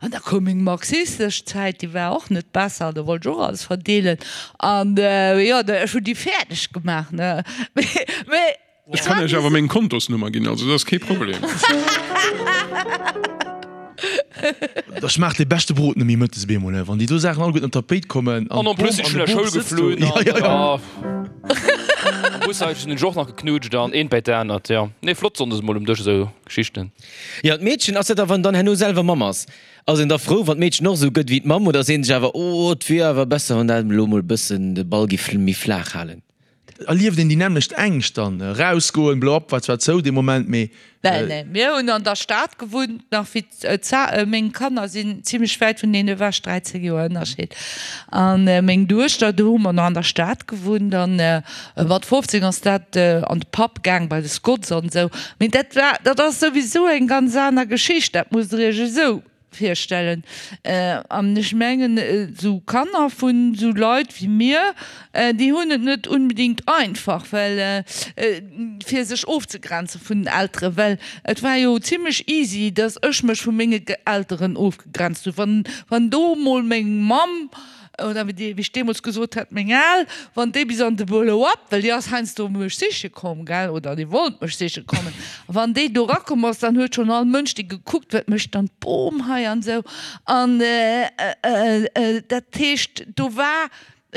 An da koum meng marxistesch Zäit, déi war och net besser, do wollt ech och alles verdeelen. An jo, ech hunn déi fäerdeg gemaach, ne. Mee. Ech kann iech awer meng Kontosnummer ginn, also dat ass kee Problem. Da schmaacht dee beschte Brot net méi mëttes bemol, wann déi do Saachen alleguerten op d'Tapéit kommen An en plus sinn ech vun der Schoul geflunn an am Bushaischen hunn ech och nach geknutscht an eent bäi d'anert, jo. Nee, flott sonndes mol um Dësch esou Geschichten. Jo, d'Meedchen, ass dat da, wann dann herno selwer Mamm ass, ass een da frou, wann d'Meedchen och esou gëtt wéi d'Mamm oder seet een sech awer, oh, et wier awer besser, wann dat elo mol e bëssen de Ball giff méi flaach halen? Erlieft een déi nämmlecht Ängscht dann? Erausgoen, blo op, war zwar zou dee Moment, mee. Nee, nee, mir hunn an der Stad gewunnt, nach wéi d'Za, meng Kanner sinn zimlech wäit vuneen ewech, 13 Joer Ënnerscheed, a meng Duechter, do hu mer nach an der Stad gewunnt an mat 15 ass dat an de Pub gaang bei de Scots an esou. Mee dat war, dat ass souwisou eng ganz aner Geschicht, dat musst Der Iech esou virstellen. An ech mengen, esou Kanner vun esou Leit wéi mir, déi hunn et net unbedingt einfach, well fir sech ofzegrenze vun den Elteren, well et war jo zimlech easy, datt ech mech vu menge Elteren ofgegrenzt hunn. Wann, wann do emol meng Mamm oder wéi ech deemools gesot hat, meng Al, wann déi bis an de Blow-up, well déi ass heiansdo mech siche komm, gell, oder déi wollt mech siche kommen, a wann déi do erakomm ass, dann huet schonn all Mënsch déi gekuckt, wat mécht dann d'Bom hei an esou. An dat heescht, do war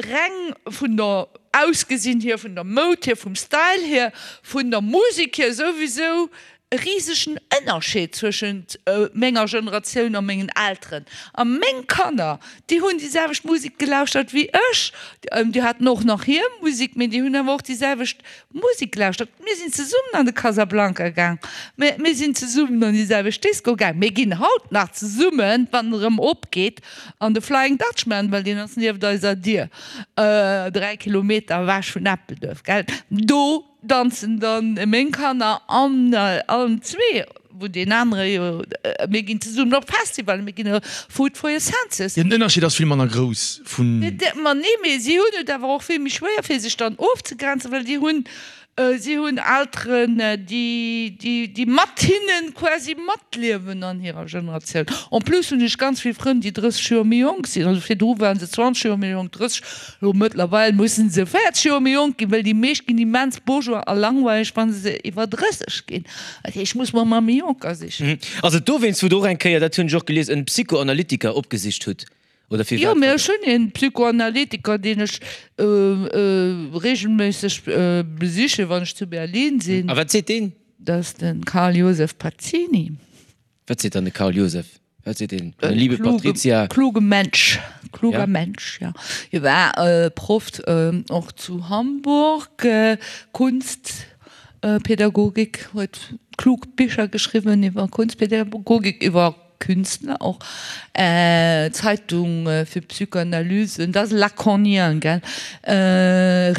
reng vun der Ausgesinn hier, vun der Moud hier, vum Style hier, vun der Musek hier souwisou e risegen Ënnerscheed zwëschent menger Generatioun a mengen Elteren. A meng Kanner, déi hunn déi selwecht Musek gelauschtert wéi ech. Déi haten och nach hir Musek, mee déi hunn awer och déi selwecht Musek gelauschtert. Mir sinn zesummen an de Casablanca gaang, mir sinn zesummen an déi selwecht Disco gaang, mir ginn haut nach zesummen, wann en erëm opgeet, an de Flying Dutchman, well deen ass nieft eiser Dier, 3 Kilometer ewech vun Eppelduerf, gell. Do Danzen dann meng Kanner an allen zwee, wou deen anere jo, mir ginn zesummen op Festivalen, mir ginn Food for your senses. Jo, den Ënnerscheed ass vill manner grouss vun. Ma nee, mee si hunn et awer och vill méi schwéier fir sech dann ofzegrenzen, well déi hunn, si hunn Elteren, déi, déi, déi mat hinne quasi matliewen an hirer Generatioun. En plus hunn ech ganz vill Frënn, déi 30 Joer méi jonk sinn, also virdru ware se 20 Joer méi jonk, 30, Lo mëttlerweil mussen se 40 Joer méi jonk ginn, well déi meescht ginn immens bourgeois a langweileg wann se iwwer 30 ginn. Dat heescht, ech muss mer emmer méi jonker sichen. Ass et dowéinst wou der och eng Kéier, dat hunn ech och gelies, en Psychoanalytiker opgesicht hutt, oder firwat Jo, war mee dat? ech hunn een Psychoanalytiker deen ech regelméisseg besichen, wann ech zu Berlin sinn. A wat seet deen? Dat ass de Karl Josef Pazzini. Wat seet dann de Karl Josef? Wat seet deen? Meine liebe Patrizia. Kluge Mensch, kluger ja. Mensch, ja. Hie war äh, Prof äh, och zu Hamburg, äh, Kunstpädagogik, huet klug Bicher geschriwwen iwwer Kunstpädagogik, iwwer. Künstler och, Zeitung fir Psychoanalyse, dat ass Lacanien, gell,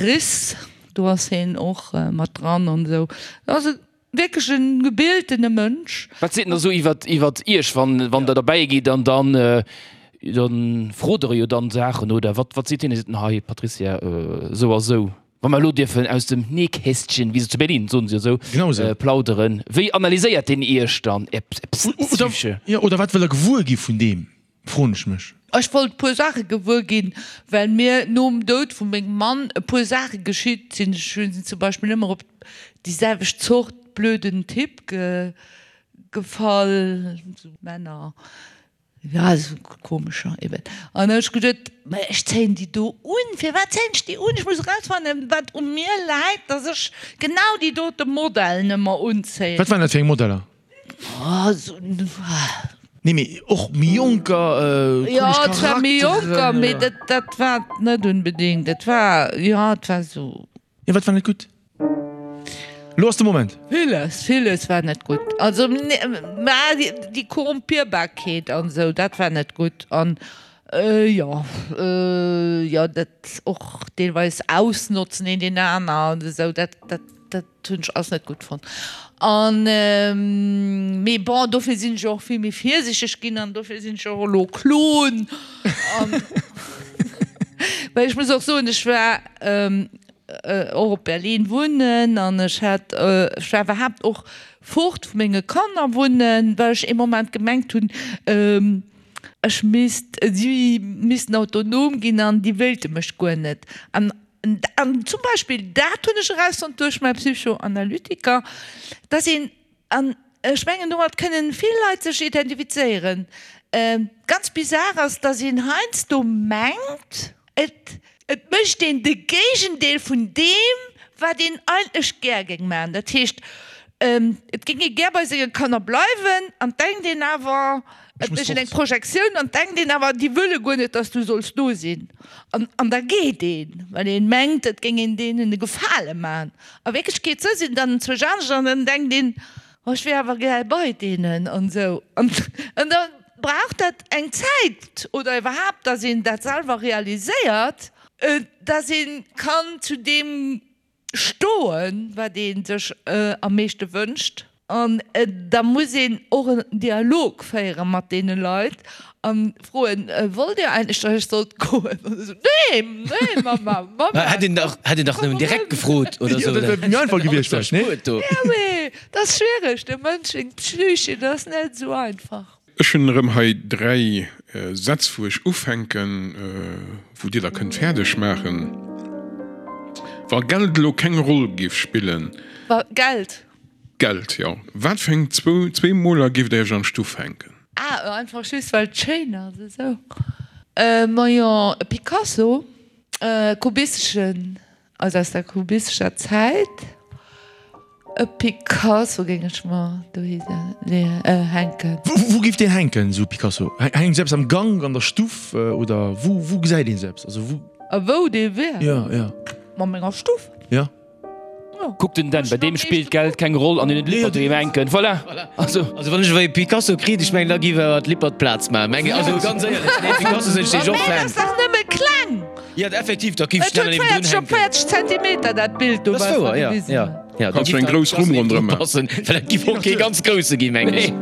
Riss, do ass hien och mat dran an esou. Dat ass e wierklech e gebiltene Mënsch. Wat seet en da sou iwwert, iwwert Iech, wann, wann Der derbäi gitt an dann, dann frot Der e jo dann Saachen, oder wat, wat seet hien? Seet en, Hei Patricia, esou a sou. Wa mer elo dierfen aus dem Nähkästchen, wéi se zu Berlin soen se jo esou, plauderen, wéi analyséiert deen Iech dann, Är Psyche? Jo, oder wat wëll e gewuer gi vun deem, froen ech mech. Ech wollt e puer Saache gewuer ginn, well mir nom Doud vu mengem Mann e puer Saache geschitt sinn. Ech sinn zum Beispill ëmmer op déi selwecht Zort blöden Typ gefall, esou Männer, Ja, esou komescher eben. An da hu ech geduet, mä ech zéien déi do un. Firwat zéien ech déi un? Ech muss erausfannen, wat u mir läit, dass ech genau déi dote Modellen ëmmer unzéien. Wat waren dat fir eng Modeller? Oh, esou. Nee, mee och méi jonker, komesch Jo, et war méi jonker, Charakteren. mee dat, dat war et net unbedingt. Et war, jo, et war esou. Jo, wat war net gutt? Lo ass de Moment. Villes, villes war net gutt. Also, mä déi Korrumpierbarkeet an esou, dat war net gutt. An jo, jo, dat och deelweis ausnotzen een deen aner an esou, dat, dat, dat hunn ech alles net gutt fonnt. An, mee bon, dofir sinn ech och vill méi virsichteg ginn an dofir sinn ech och elo Klon. An, well ech muss och soen, ech war, och op Berlin wunnen an ech hat, ech war iwwerhaapt och fort vu menge Kanner wunnen, well ech ee Moment gemengt hunn, ech misst, si missten autonom ginn an déi wéilte mech guer net. An, an zum Beispill dat hunn ech erausfonnt duerch mäi Psychoanalytiker, dass een, An ech mengen, domat kënnen vill Leit sech identifizéieren. Ganz bizar ass, dass een heiansdo mengt, et et mécht een de Géigendeel vun deem, wat een eigentlech gär géing maachen. Dat heescht, et géing ee gär bei senge Kanner bleiwen an denkt een awer, et mécht een eng Projektioun an denkt een awer, déi wëlle guer net, dass du solls do sinn. An an da geet een, well een mengt, et géing een deenen e Gefale maachen. A Wierklechkeet sou sinn dann zwou anescht an dann denkt een, oh ech wier awer gär bei deenen an esou. An da brauch dat eng Zäit oder iwwerhaapt, datt een dat selwer realiséiert, datt ee kann zu deem stoen, wat ee sech am meeschte wënscht. An da muss een och en Dialog féiere mat deene Leit a froen, Wollt Dir eigentlech, datt ech sollt goen? An da sou, Nee, nee, Mama, Mama. Hätt een dach, hätt een dach nëmmen direkt gefrot oder sou. Dat wär méi einfach gewiescht vläicht, nee? Ja, mee dat ass schwiereg, de Mënsch seng Psyche, dat ass net esou einfach. Ech hunn erëm hei 3 Sätz wou ech ufänken, wou dir da kënnt fäerdeg maachen. Wa Geld elo keng Roll géif spillen. Wa Geld? Geld, jo. Wat fir eng zwou Moler géift der iech an d'Stuff hänken? Ah, einfach just well et schéin ass, esou. Majo, e Picasso, e kubisteschen. Also aus der kubistescher Zäit. E Picasso géing ech mer dohi hänken. Wou géif deen hänken, esou e Picasso? Hänkt esou eppes am Gank, an der Stuff oder wou wou gesäit een esou eppes? Also wou. A wou dee wär? Jo, jo. A menger Stuff. Jo. Kuck den Dan, bei deem spillt Geld keng Roll an en huet Lippert doheem hänken. Voilà! Also wann ech ewéi e Picasso kritt, ech mengen da giff awer d'Lippert Plaz maachen, mengen also ganz éierlech, nee Picasso sinn ech deeg och Fan. Mä dat ass dach nëmme kleng! Jo effektiv, da giff ech Et huet 40 op 40 Zentimeter dat Bild do, Dat ass wat wouer, mer jo, gewisen jo, hunn. jo, da Kanns du giff eng dat grouss Rumm ronderëm maachen. passen, well dat giff och kee ganz grousse ginn, mengen ech.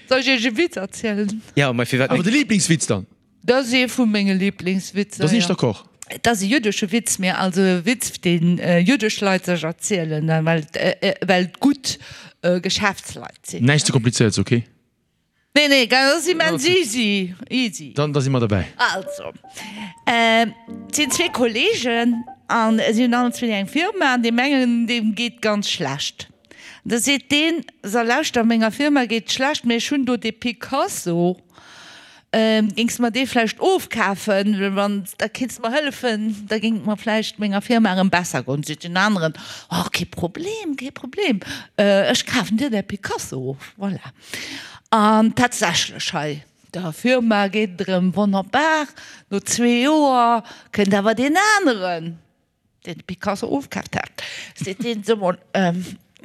Soll ech iech e Witz erzielen? Jo, mä firwat Awer net? de Lieblingswitz dann? Dat ass ee vu menge Liblingswitzer, Da sinn ech jo. d'accord. Et ass e jüddesche Witz, mee also e Witz, dee jüddesch Leit sech erzielen, well et gutt Geschäftsleit sinn. Näischt ze komplizéierts, ok? Nee, nee, dat ass immens easy, easy. Dann, da si mer derbäi. Also, et sinn zwee Kollegen an si hunn allen zwee eng Firma an deem engen, deem geet ganz schlecht. Da seet deen, So, lauschter, menger Firma geet et schlecht, mee ech hunn do dee Picasso, Géings de mer dee vläicht ofkafen, wann da kéints de mer hëllefen, da géing et mer vläicht menger Firma erëm besser goen. Seet deen aneren, Oh, kee Problem, kee Problem, ech kafen dir däi Picasso of. Voilà. An tatsächlech, hei der Firma geet et erëm wonnerbar. No zwee Joer kënnt awer deen aneren, deen de Picasso ofkaaft hat, seet deen, So mol,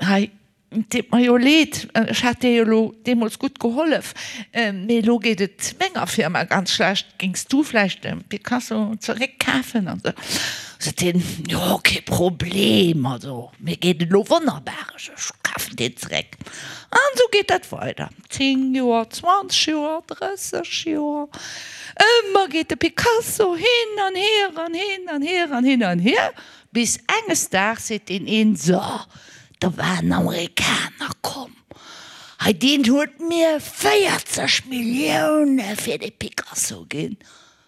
hei. Et deet mer jo leed, ech hat dir jo elo deemools gutt gehollef, mee elo geet et menger Firma ganz schlecht, géings du vläicht de Picasso zeréckkafen? An esou sot hien, Jo, kee Problem, also mir geet et elo wonnerbar, ech kafen deen zeréck. An esou geet dat weider, 10 Joer, 20 Joer, 30 Joer, ëmmer geet de Picasso hin an hier an hin an hier an hin an hier, bis enges Daags seet deen een, So, Da war en Amerikaner komm, hei deen huet mir 40 Millioune fir dee Picasso ginn.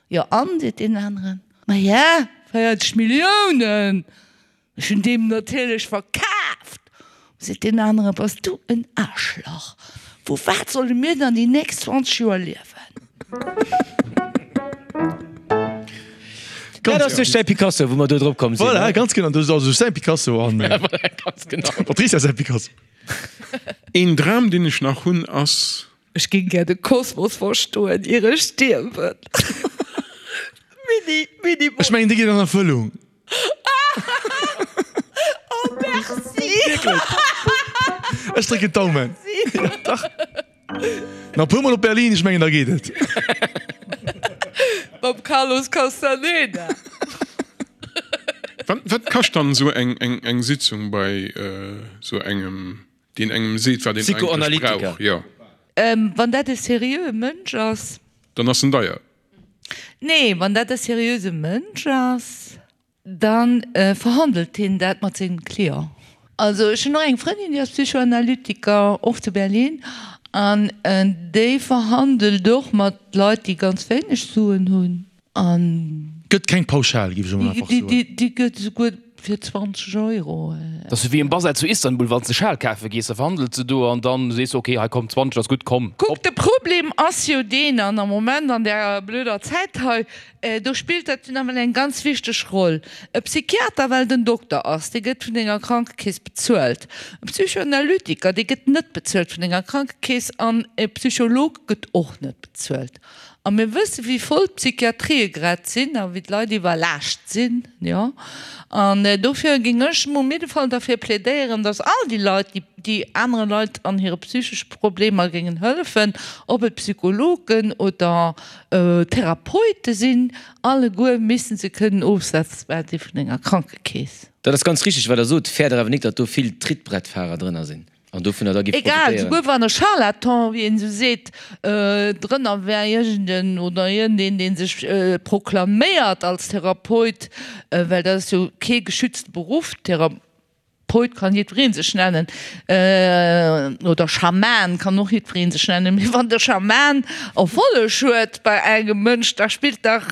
Jo an, seet deen aneren, ma ja, 40 Milliounen, ech hunn deem natierlech verkaaft. Seet deen aneren, bass du en Aarschlach, vu wat solle mir dann déi nächst 20 Joer liewen? Dat ass duerch säi Picasso, wou mer do drop komm sinn. Voilà, ganz genau. Dat ass also säi Picasso an ja, voilà, ganz genau. Patricia säi Picasso. Een Dram, deen ech nach hunn, ass. Ech géing gär de Kosmos verstoen, ier ech stierwen. Mini, mini. Ech mengen, dee geet an Erfëllung. Oh, merci. Wierklech. Ech drécken d'Daumen. Ja, dach. Nach e puer Mol op Berlin, ech mengen da geet et. Mam Carlos Castaneda. Wat, wat kascht dann esou eng, eng, eng Sitzung bei esou engem, deen engem seet, wat een eigentlech brauch? Jo. Wann dat e seriöe Mënsch ass. Dann ass en deier. Nee, wann dat e seriöse Mënsch ass. Da verhandelt hien dat mat sengem Client. Also ech hunn och eng Frëndin, déi ass Psychoanalytiker, och zu Berlin, an déi verhandelt och mat Leit, déi ganz wéineg Suen hunn. An. Gëtt keng Pauschal, géif ech emol einfach soen. Déi gëtt esouguer fir 20 Euro. Dat ass wéi um Basar zu Istanbul, wann s de Schal kafe gees, da verhandels de do an dann sees de, ok, hei komm, 20 ass gutt, komm, Kuck, hopp. de Problem ass jo deen, an am Moment an där blöder Zäit hei, Do spillt dat nawell eng ganz wichteg Roll. E Psychiater, well den Dokter ass, dee gëtt vun denger Krankekeess bezuelt. E Psychoanalytiker, dee gëtt net bezuelt vun denger Krankekeess an e Psycholog gëtt och net bezuelt. A mir wësse wéi voll d'Psychiatrië grad sinn a wéi d'Leit iwwerlaascht sinn, jo. An dofir géing ech um jidde Fall derfir plädéieren, datt all déi Leit, déi déi anere Leit an hire psychesche Problemer géingen hëllefen, ob et Psychologen oder Therapeute sinn alleguer missten se kënnen ofsetzbar si vun enger Krankekeess. Dat ass ganz richteg wat der sot, fäert der awer nik datt do vill Trittbrettfahrer drënner sinn an dovunner da giff Egal, profitéieren? souguer wann e Charlatan, wéi een esou seet, drënner wär, iergend en oder iergendeen dee sech proklaméiert als Therapeut, well dat ass jo kee geschützte Beruff, Thera. Poet kann jiddweree sech nennen, oder Schaman kann och jiddweree sech nennen, mee wann de Schaman Erfolleg huet bei engem Mënsch, da spillt dach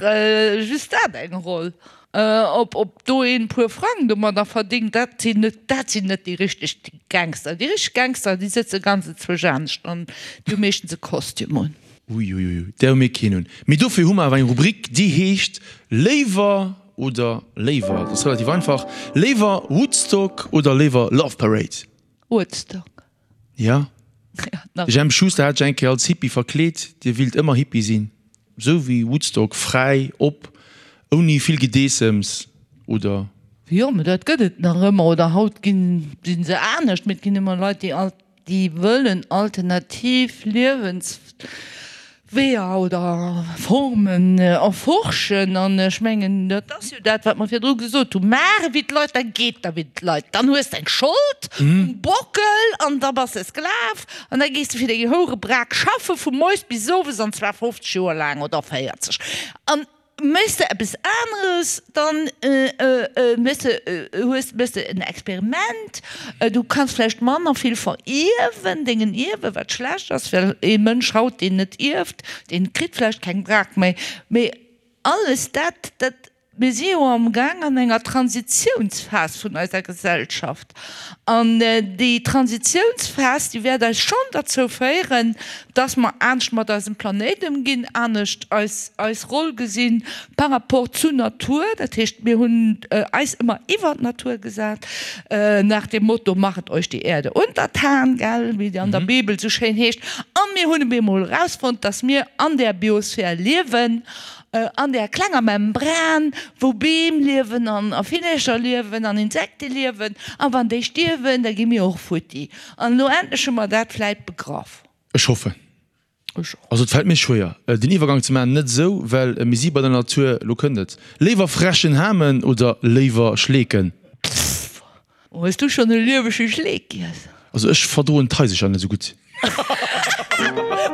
just dat eng Roll. Ob ob do een puer Frang domadder verdingt, dat sinn net dat sinn net déi richteg Gangster. Déi richteg Gangster, déi sëtze ganz enzwousch anescht an déi hu meeschtens e Kostüm un. Uiuiui, där hu mir keen un. Mee dofir hu mer awer eng Rubrik, déi heescht Léiwer Oder léiwer, dat ass relativ einfach, léiwer Woodstock oder léiwer Love Parade? Woodstock. Ja? Ja, nach. De Jemp Schuster hat sech eng Kéier als Hippie verkleet, Dir willt ëmmer Hippie sinn, sou wéi Woodstock, fräi, op, ouni vill Gedeessems, oder? Jo, mä dat gëtt et nach ëmmer, oder haut ginn, si se anescht, mä et ginn ëmmer Leit, déi alt. déi wëllen alternativ Liewensweeër oder Formen erforschen. An ech mengen, dat ass jo dat, wat mer virdru gesot hunn, Maach ewéi d'Leit, da geet der wéi d'Leit. Dann hues de eng Schold um Bockel an da bass de Sklav an da gees de fir deng Hourebrak schaffe vu moies bis owes, an zwar 50 Joer laang oder 40. An Méchs de eppes aneres, dann méchs de, hues, méchs de en Experiment. Du kanns vläicht manner vill verierwen, dengen Ierwen, wat schlecht ass, well ee Mënsch haut, deen net ierft, dee kritt vläicht keng Brak méi. Mee alles dat, dat, mir si jo amgaang an enger Transitiounsphas vun eiser Gesellschaft. An déi Transitiounsphas, déi wäert eis schonn derzou féieren, dass mer anescht mat eisem Planéit ëmginn, anescht eis eis Roll gesinn par rapport zur Natur. Dat heescht, mir hunn eis ëmmer iwwer d'Natur gesat, nach dem Motto Machet euch die Erde untertan, gell, wéi et an der Bibel esou schéin heescht. A mir hunn op eemol erausfonnt, dass mir an där Biosphär liewen. an där klenger Membran, wou Beem liewen an a Villercher liewen an Insekte liewen. A wann déi stierwen, da gi mir och futti. An elo endlech hu mer dat vläit begraff. Ech hoffen. Ech och. Also et fält mir schwéier den Iwwergang ze maachen, net esou well mir si bei der Natur, lo kënnt et, léiwer frechen Hamen oder léiwer Schleeken? Pff, hues du schonn e liewege Schleek giess? Also ech verdroen d'Haisercher net esou gutt.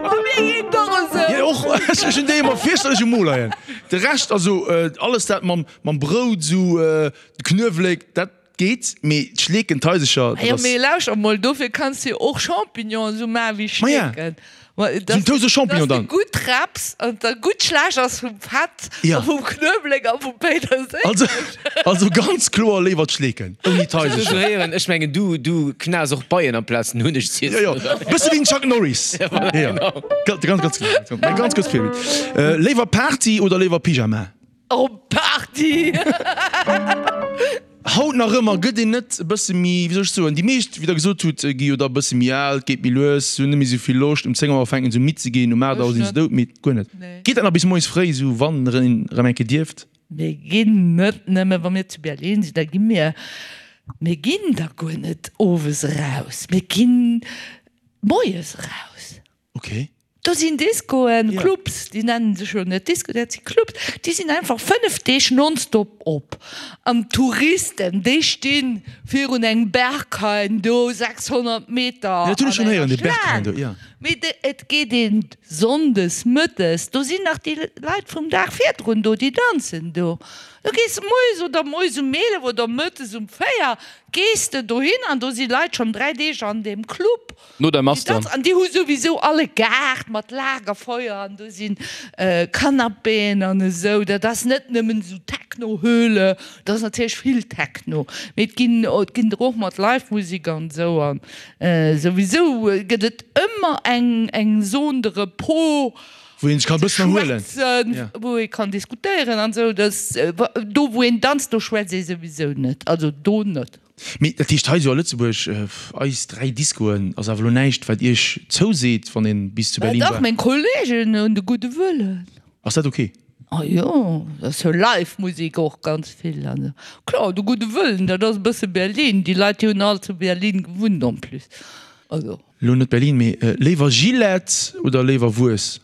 Ma mir geet et och esou. Jo och, ech hunn déi ëmmer fierchterlech um Mo leien. De Rescht, also alles dat mam Brout esou, de Knuewelek, dat Geet, mee d'Schleeken, d'Haisercher, dat Jo, ass. mee lauschter mol, dofir kanns de jo och Champignonen esou maachen wéi Maja, Schleeken. esou en Toast au Champignon Dass de dann. gutt rapps an et da gutt schlecht ass vum Fett Ja. a vum Knuewelek a vum Péiterséileg. Also, also ganz kloer léiwer d'Schleeken ouni Ech muss d'Haisercher. héieren, ech mengen du, du knaas och Beien amplaz den Hunneg ze Jo, jo, iessen, oder? bësse wéi den Chuck Norris. Ja, voilà, Jo, genau. ganz, ganz, ganz, ganz, ganz kuerz Virbild. Léiwer Party oder léiwer Pyjama? Op Party! Haut nach ëmmer gëtt een net e bësse méi, wéi soll ech soen, déi meescht, wéi Der gesot hutt, gi jo da e bësse méi al, et geet méi lues, se hunn net méi esou vill Loscht. Um 10 Auer fänken se u midd ze ginn, um 8 Auer si se doudmidd. Guer net. Geet dat nach bis moies fréi esou, wann een erëm eng Kéier dierft? Mir ginn net nëmme, wa mir zu Berlin sinn, da gi mir, mir ginn da guer net owes eraus, mir ginn moies eraus. Ok. Do sinn Discoen, Clubs, déi nennen sech jo net Disco, dat si Clubs, déi sinn einfach 5 Deeg nonstop op. An d'Touristen, déi sti virun engem Berghain do 600 Meter Ja, dat hunn ech an schonn héieren, enger dee Berghain do, Schlaang. ja. Mee de, et geet een sonndes mëttes, do sinn nach déi Leit vum Dag virdrun do, déi danzen do. Du gees moies oder moies um 11 oder mëttes um 4 gees de dohin an do si Leit schonn 3 Deeg an deem Club. No der Mass dann. An déi hu souwisou all e Gaart mat Lagerfeuer an do si Canapéen an esou. Dat ass net nëmmen esou Techno-Höhle, dat ass natierlech vill Techno, mee et ginn et ginn der och mat Live-Musek an esou. An souwisou gëtt et ëmmer eng eng Zone de repos, Wou een sech kann e bëssen erhuelen. Schwätzen, wou ee kann diskutéieren an esou. Do wou een danzt, do schwätzt ee souwisou net, also do net. Mee dat heescht hei esou a Lëtzebuerg, eis 3 Discoen ass awer elo näischt wat iech zouseet wann een bis zu Berlin Dach, war? meng Kollegen hunn de gudde Wëllen. Ass dat ok? Ah jo, dat ass jo live Musek och ganz vill an esou. Kloer, de gudde Wëllen, dat ass e bësse Berlin, déi Leit déi hunn all zu Berlin gewunnt en plus, also. Elo net Berlin, mee léiwer Gillette oder léiwer Wues?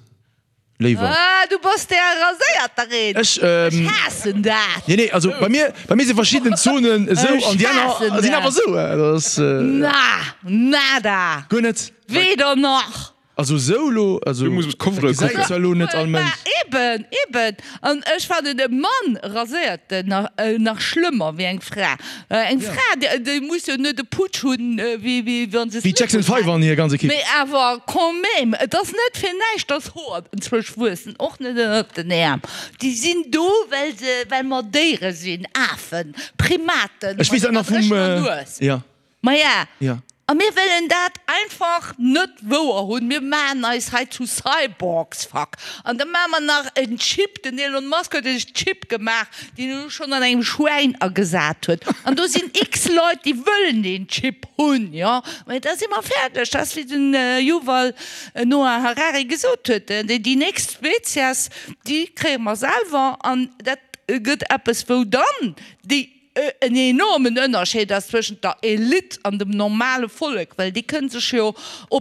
Léiwer. Ah, du bass der raséierter een. Ech, ähm. Ech haassen dat. Nee, nee, also bei mir, bei mir si verschidden Zonen esou an déi aner sinn awer esou. Dat ass. Na, nada. Guer net. Weder nach. Also esou elo, also. Du muss op d'Covere kucken. Dat gesäit zwar elo net all Mënsch. Eben, eben. An ech fannen e Mann raséiert nach, nach schlëmmer wéi eng Fra. Eng Fra, déi muss jo net e Putsch hunn, wéi wann se Wéi d'Jackson 5 an hir ganz Ekipp. Mee awer quand même, et ass net fir näischt, dass Hoer enzwousch wuessen, och net ënnert den Äerm. Déi sinn do, well se, well mer Déiere sinn, Afen, Primaten, Ech weess mat dat nach enger vum, dréchener Nues. ja. Maja, Ja. a mir wëllen dat einfach net wouer hunn. Mir maachen eis hei zu Cyborgs, fuck. An da maache mer nach en Chip, den Elon Musk huet e Chip gemaach, deen en elo schonn an engem Schwäin agesat huet. An do sinn x Leit, déi wëllen deen Chip hunn, jo. Mä da si mer fäerdeg. Dat ass, wéi den Yuval Noah Harari gesot huet, déi nächst Spezies, déi kréie mer selwer. An dat gëtt eppes, wou dann déi en enormen Ënnerscheed ass zwëschent der Elite an dem normale Vollek, well déi kënne sech jo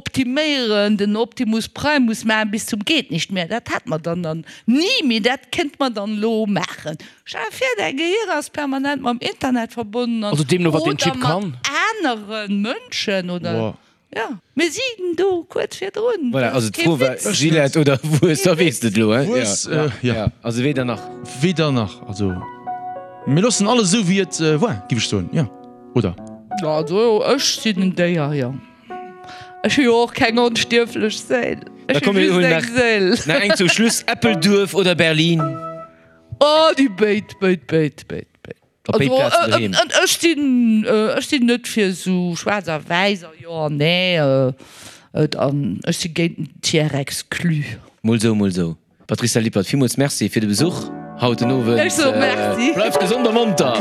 optiméieren, den Optimus Primus maachen bis zum geht nicht mehr, dat hätt mer dann dann ni, mee dat kënnt mer dann elo maachen. Stell der vir, däi Gehir ass permanent mam Internet verbonnen an Also deemno wat deen oder Chip mat kann. anere Mënschen oder. Wow. Jo, mir sinn do kuerz virdrun. Voilà, also d'Fro war Gillette oder Wues, da weess de et elo, hein? Wues, jo. Also weder nach. Weder nach, also mir loossen alles esou wéi et war, giff ech soen, jo, oder? Also ech sinn en Déier, jo. Ech hu jo och keng onstierflech Séil. Da Ech hu komm mir just hunn eng nach, Séil. nach eng zum Schluss, Eppelduerf oder Berlin? Oh, déi béid, béid, béid, béid, béid. Op béid Plazen doheem. Ech sinn, ech sinn net fir esou schwaarz a wäiss a jo an nee. Et an ech si géint den Tiers exclu. Mol sou, mol sou. Patricia Lippert, villmools Merci fir de Besuch haut den Owend. Ech soe Merci. Bleift gesond a monter!